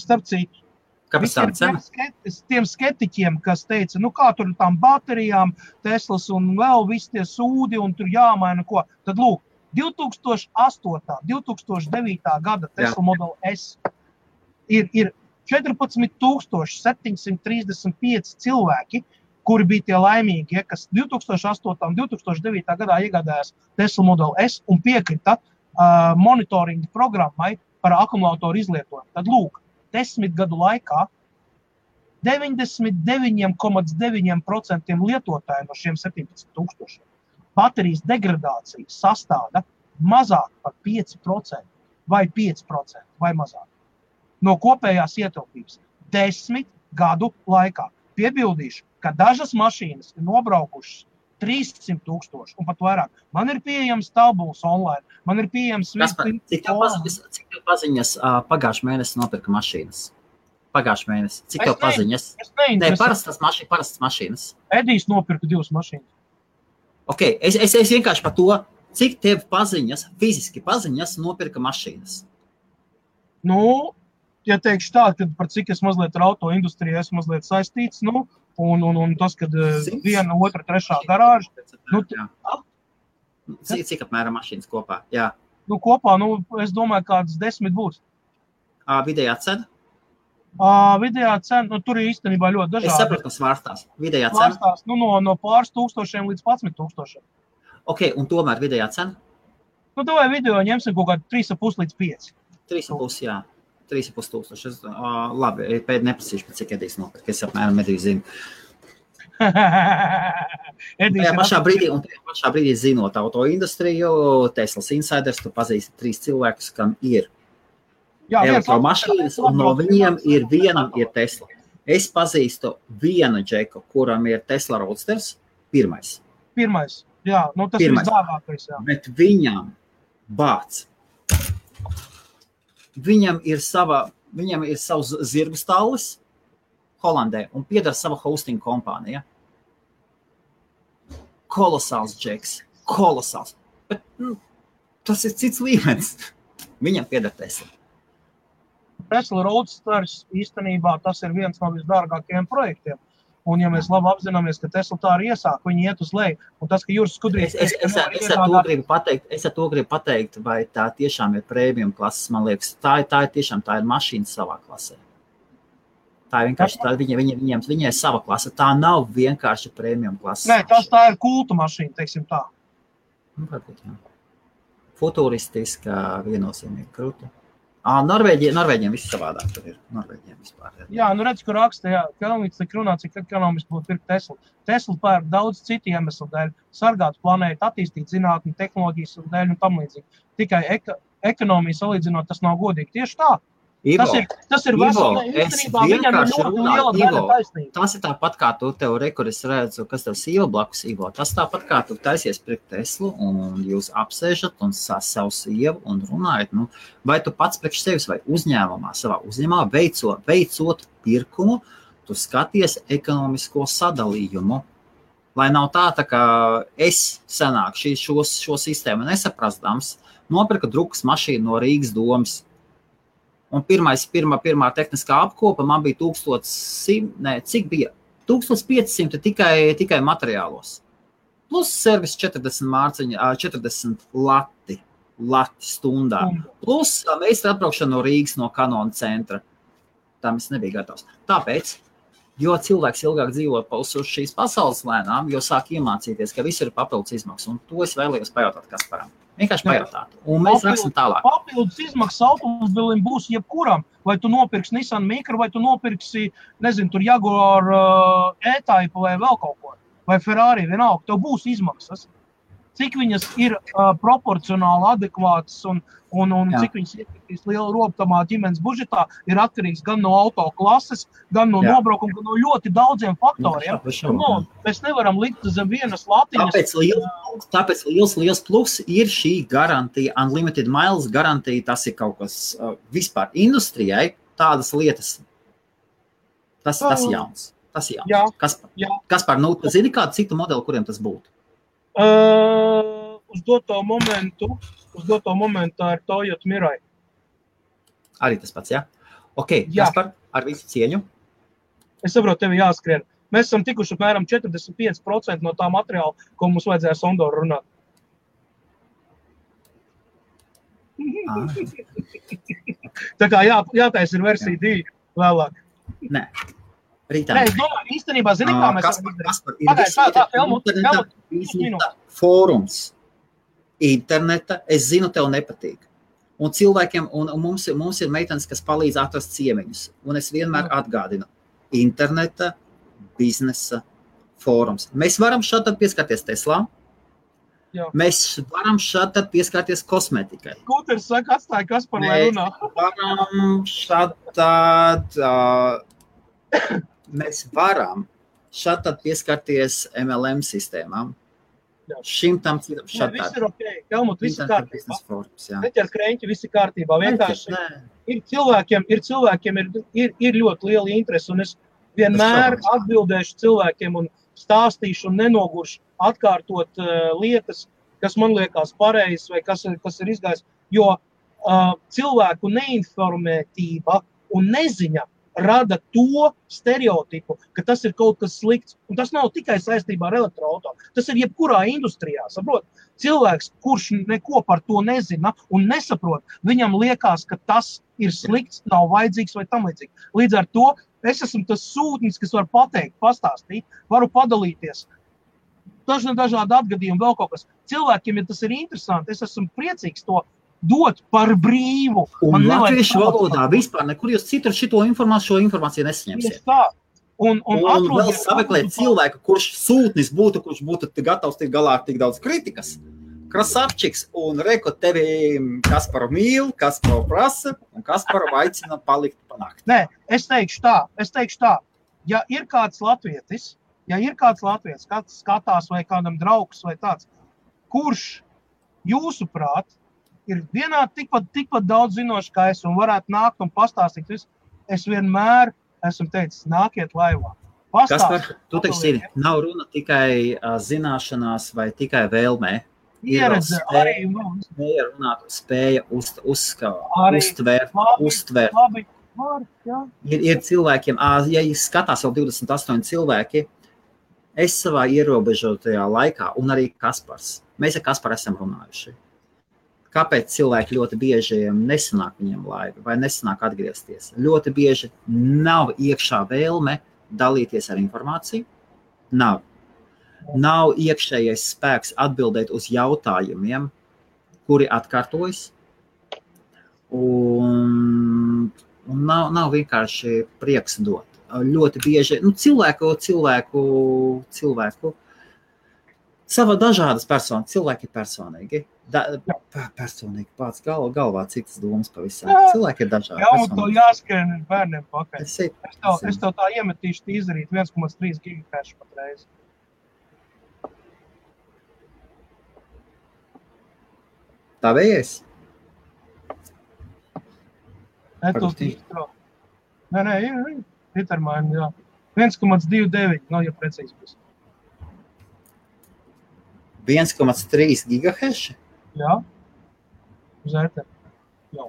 Speaker 1: Starp citu, tiem skeptiķiem, kas teica, kā tur tām baterijām, Teslas un vēl visi tie sūdi un tur jāmaina ko. Tad lūk, 2008. 2009. gada Tesla Model S ir 14,735 cilvēki, kuri bija tie laimīgi, kas 2008. un 2009. gadā iegādājās Tesla Model S un piekrita monitoringa programmai par akumulātoru izlietojumu. Tad lūk, 10 gadu laikā 99,9% lietotāji no šiem 17,000 baterijas degradācija sastāda mazāk par 5% vai 5% vai mazāk no kopējās ietilpības 10 gadu laikā. Piebildīšu, ka dažas mašīnas ir nobraukušas 300,000 un pat vairāk. Man ir pieejams tabulas online, man ir pieejams...
Speaker 2: Cik tev paziņas pagājušajā mēnesī nopirka mašīnas? Pagājušajā mēnesī. Cik tev paziņas? Parastas mašīnas.
Speaker 1: Edijs nopirka 2 mašīnas.
Speaker 2: Ok, es vienkārši par to, cik tev paziņas, fiziski paziņas nopirka mašīnas?
Speaker 1: Ja teikšu tā, ka par cik es mazliet ar auto industrijā esmu mazliet saistīts, un tas, kad 1, 2, 3 garāža.
Speaker 2: Cik apmēram mašīnas kopā? Jā.
Speaker 1: Kopā, es domāju, kādas 10 būs.
Speaker 2: Vidējā cena?
Speaker 1: Vidējā cena, tur ir īstenībā ļoti dažādi.
Speaker 2: Es sapratu, kas svārstās. Vidējā cena?
Speaker 1: Svārstās, no pāris tūkstošiem līdz 11,000.
Speaker 2: Ok, un tomēr vidējā cena?
Speaker 1: Vai video ņemsim kaut kādu 3,5 līdz 5.
Speaker 2: 3,5, jā. 3,500. Labi, pēd neprasīšu, cik Edijs nopirka. Es apmēram Ediju zinu. Tajā pašā brīdī zinot auto industriju, Teslas Insiders, tu pazīsti 3 cilvēkus, kam ir elektromašīnas, un no viņiem vienam ir Tesla. Es pazīstu vienu džeku, kuram ir Tesla Roadsters, pirmais.
Speaker 1: Jā, nu tas ir visdārgākais, jā.
Speaker 2: Bet viņam bāc. Viņam ir savs zirgu stallis Holandē un piedara sava hosting kompānija. Kolosāls džeks, kolosāls. Bet tas ir cits līmenis. Viņam piedara Tesla.
Speaker 1: Tesla Roadsters īstenībā tas ir viens no visdārgākajiem projektiem. Un ja mēs labi apzināmies, ka Tesla tā arī iesāk, viņi iet uz leju. Un tas, ka Juris Skudrīs...
Speaker 2: Es ar to gribu pateikt, vai tā tiešām ir premium klases, man liekas. Tā ir mašīna savā klasē. Tā ir vienkārši, viņai ir sava klase. Tā nav vienkārši premium klases.
Speaker 1: Nē, tā ir kulta mašīna, teiksim tā.
Speaker 2: Varbūt, jā. Futuristiska, viennozīmīgi krūta. Norvēģiem viss savādāk tur ir. Norvēģiem vispār.
Speaker 1: Jā, nu redz, kur raksta, jā, Kelmīts tik runā, cik ekonomiski būtu pirkt Tesla. Tesla pērk daudz citu iemeslu dēļ, sargāt planētu, attīstīt zinātni, tehnoloģijas un dēļ un tam līdzīgi. Tikai ekonomiju salīdzinot, tas nav godīgi. Tieši tā.
Speaker 2: Ivo,
Speaker 1: tas ir vesel, īstenībā viņam ir ļoti liela daļa taisnība.
Speaker 2: Tas ir tāpat kā tu tev kur es redzu, kas tev Ivo blakus, Ivo. Tas tāpat kā tu taisies priekš Teslu un jūs apsēžat un savu sievu un runājat. Nu, vai tu pats priekš sevis vai savā uzņēmumā veicot pirkumu, tu skaties ekonomisko sadalījumu. Lai nav tā kā es senāk šo sistēmu nesaprastams, nopirka drukas mašīnu no Rīgas domas. Un pirmā tehniskā apkopa man bija 1500 tikai materiālos. Plus servis 40 lati stundā. Plus meistara atbraukšana no Rīgas no Kanona centra. Tam es nebija gatavs. Tāpēc, jo cilvēks ilgāk dzīvo uz šīs pasaules lēnām, jo sāk iemācīties, ka viss ir papildus izmaksas. Un to es vēlējos pajautāt Kasparam. Vienkārši pajautāt. Un mēs raksim tālāk.
Speaker 1: Papildus izmaksas automobilim būs jebkuram. Vai tu nopirksi Nissan Micra, vai tu nopirksi, nezinu, tur Jaguar E-Type vai vēl kaut ko. Vai Ferrari, vienalga. Tev būs izmaksas. Cik viņas ir proporcionāli adekvātas un cik viņas ietekmīs lielu robtamā ģimenes budžetā, ir atkarīgs gan no auto klases, gan no nobraukuma, gan no ļoti daudziem faktoriem. Mēs nevaram likt zem vienas latiņas.
Speaker 2: Tāpēc liels plus ir šī garantija, unlimited miles garantija, tas ir kaut kas vispār industrijai, tādas lietas. Tas jauns. Tas jauns. Kaspar, nu, tu zini kādu citu modeli, kuriem tas būtu?
Speaker 1: Uz doto momentu tā ir Toyota Mirai.
Speaker 2: Arī tas pats, jā? Ok, Kaspar, ar visu cieņu.
Speaker 1: Es saprotu, tevi jāskrien. Mēs esam tikuši apmēram 45% no tā materiāla, ko mums vajadzēja Sondoru runāt. Tā kā jātais ir versija 2 vēlāk.
Speaker 2: Nē. Rītā.
Speaker 1: Nē, es domāju, īstenībā, zini, kā mēs varam
Speaker 2: izdarīt. Fórums. Interneta, es zinu, tev nepatīk. Un cilvēkiem, un mums ir meitenes, kas palīdz atrast ciemiņus. Un es vienmēr atgādinu. Interneta, biznesa, fórums. Mēs varam šādi pieskarties Teslā. Jā. Mēs varam šādi pieskarties kosmetikai.
Speaker 1: Kūters saka, atstāja Kaspar, lai runā.
Speaker 2: Mēs varam šādi pieskarties MLM sistēmām.
Speaker 1: Jā.
Speaker 2: Šim tam citam šādi.
Speaker 1: Viss ir ok. Helmut, viss ir kārtībā. Neķer kreņķi, viss ir kārtībā. Vienkārši ir cilvēkiem ir ļoti liela interese, un es vienmēr atbildēšu cilvēkiem un stāstīšu un nenoguršu atkārtot lietas, kas man liekas pareizas vai kas ir izgājis, jo cilvēku neinformētība un neziņa rada to stereotipu, ka tas ir kaut kas slikts. Un tas nav tikai saistībā ar elektroauto. Tas ir jebkurā industrijā, saprot? Cilvēks, kurš neko par to nezina un nesaprot, viņam liekas, ka tas ir slikts, nav vajadzīgs vai tam līdzīgi. Līdz ar to es esmu tas sūtnis, kas var pateikt, pastāstīt, varu padalīties. Dažādi atgadījumi, vēl kaut kas. Cilvēkiem, ja tas ir interesanti, es esmu priecīgs to dot par brīvu.
Speaker 2: Un latviešu valodā vispār nekur jūs citur šo informāciju nesaņemsiet. Un vēl sameklēt cilvēku, kurš sūtnis būtu, kurš būtu gatavs tik galā ar tik daudz kritikas. Krasavčiks un reko tevi Kasparu mīl, Kasparu prasa un Kasparu aicina palikt panākt.
Speaker 1: Nē, es teikšu tā. ja ir kāds latvietis, kāds skatās vai kādam draugs vai tāds, kurš jūsuprāt ir vienādi tikpat daudz zinoši kā es un varētu nākt un pastāstīt visu, es vienmēr esmu teicis, nākiet laivā.
Speaker 2: Kaspar, tu teiksi, nav runa tikai zināšanās vai tikai vēlmē.
Speaker 1: Pieredze arī.
Speaker 2: Spēja runāt, spēja uztvērt.
Speaker 1: Labi, jā.
Speaker 2: Ir cilvēkiem, ja skatās vēl 28 cilvēki, es savā ierobežotajā laikā, un arī Kaspars, mēs ar Kasparu esam runājuši. Kāpēc cilvēki ļoti bieži nesanāk viņiem laivi vai nesanāk atgriezties? Ļoti bieži nav iekšā vēlme dalīties ar informāciju, nav iekšējais spēks atbildēt uz jautājumiem, kuri atkārtojas, un nav vienkārši prieks dot. Ļoti bieži, cilvēku sava dažādas personas, cilvēki ir personīgi. Personīgi pats galvā citas domas pavisam. Cilvēki ir dažādi.
Speaker 1: Jā, un to jāskrien bērniem pakaļ. Es tev tā iemetīšu izdarīt 1,3 gigahertz patreiz.
Speaker 2: Tā vējies?
Speaker 1: Nē, Petermaini, jā. 1,29, ja precīzi būs.
Speaker 2: 1,3 gigahertz?
Speaker 1: Jā. Uz ēteru. Jā.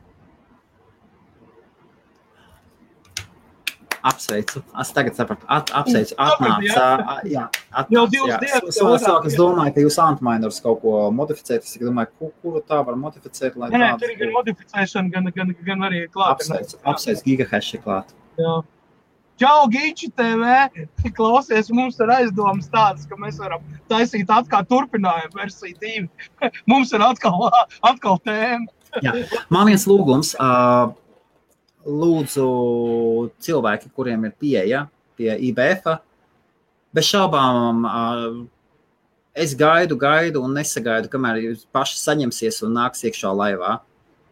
Speaker 2: Apsveicu. Es tagad sapratu. Apsveicu. Atnāca. Jā.
Speaker 1: Jau 2 dienas.
Speaker 2: Es domāju, ka jūs antmainers kaut ko modificēt. Es domāju, kuru tā var modificēt, lai
Speaker 1: Nē, tur ir gan modificēšana, gan arī klāt.
Speaker 2: Apsveicu gigahertz klāt.
Speaker 1: Jā. Čau, Giči TV! Klausies, mums ir aizdomas tādas, ka mēs varam taisīt atkal turpinājumu versiju 2. Mums ir atkal tēma.
Speaker 2: Jā. Man viens lūgums. Lūdzu cilvēki, kuriem ir pieeja pie IBF-a, bez šaubām es gaidu un nesagaidu, kamēr jūs paši saņemsies un nāks iekšā laivā.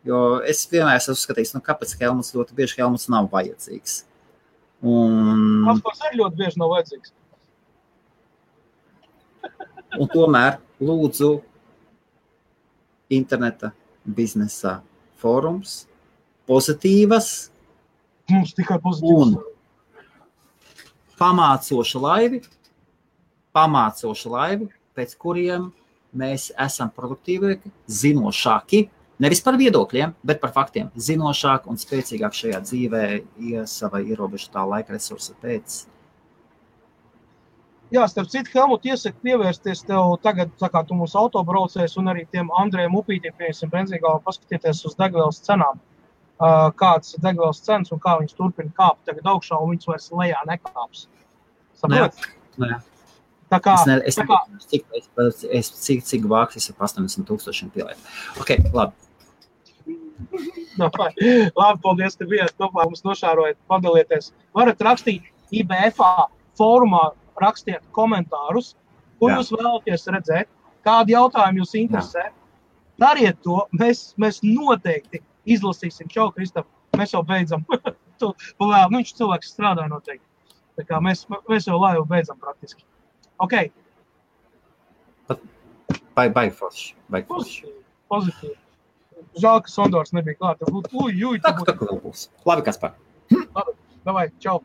Speaker 2: Jo es vienmēr esmu uzskatījis, kāpēc Helmuts ļoti bieži Helmuts nav vajadzīgs.
Speaker 1: Kaspars arī ļoti bieži nav vajadzīgs.
Speaker 2: Un tomēr lūdzu interneta biznesa fórums, pozitīvas
Speaker 1: Mums tikai pozitīvas.
Speaker 2: un pamācoši laivi, pēc kuriem mēs esam produktīvāki, zinošāki, nevis par viedokļiem, bet par faktiem, zinošāk un spēcīgāk šajā dzīvē, savai ierobežotā laika resursa pēc.
Speaker 1: Jā, starp citu, Helmut, iesaku pievērsties tev tagad, kā tu mūsu autobraucējs un arī tiem Andrejam Upītiem, piemēram, benzīgālā paskatieties uz degvielas cenām. Kāds ir degvielas cenas un kā viņas turpina kāpt tagad augšā un viņas vairs lejā nekāps. Saprot?
Speaker 2: Nē.
Speaker 1: Tā kā,
Speaker 2: cik vāks es ar 80,000 pielēt. Ok, labi.
Speaker 1: Labi, paldies, ka bijāt kopā, mums nošārojat, padalieties. Varat rakstīt IBF-ā fórumā, rakstiet komentārus, ko jūs vēlaties redzēt, kādi jautājumi jūs interesē. Dariet to, mēs noteikti izlasīsim. Čau, Kristap, mēs jau beidzam. Viņš cilvēks strādā noteikti. Tā kā mēs jau laivu beidzam praktiski. Ok.
Speaker 2: Baigi forši.
Speaker 1: Pozitīvi. Žēl, ka Sondors nebija klāt.
Speaker 2: Tā vēl būs. Labi, Kaspar.
Speaker 1: Labi, davai, čau.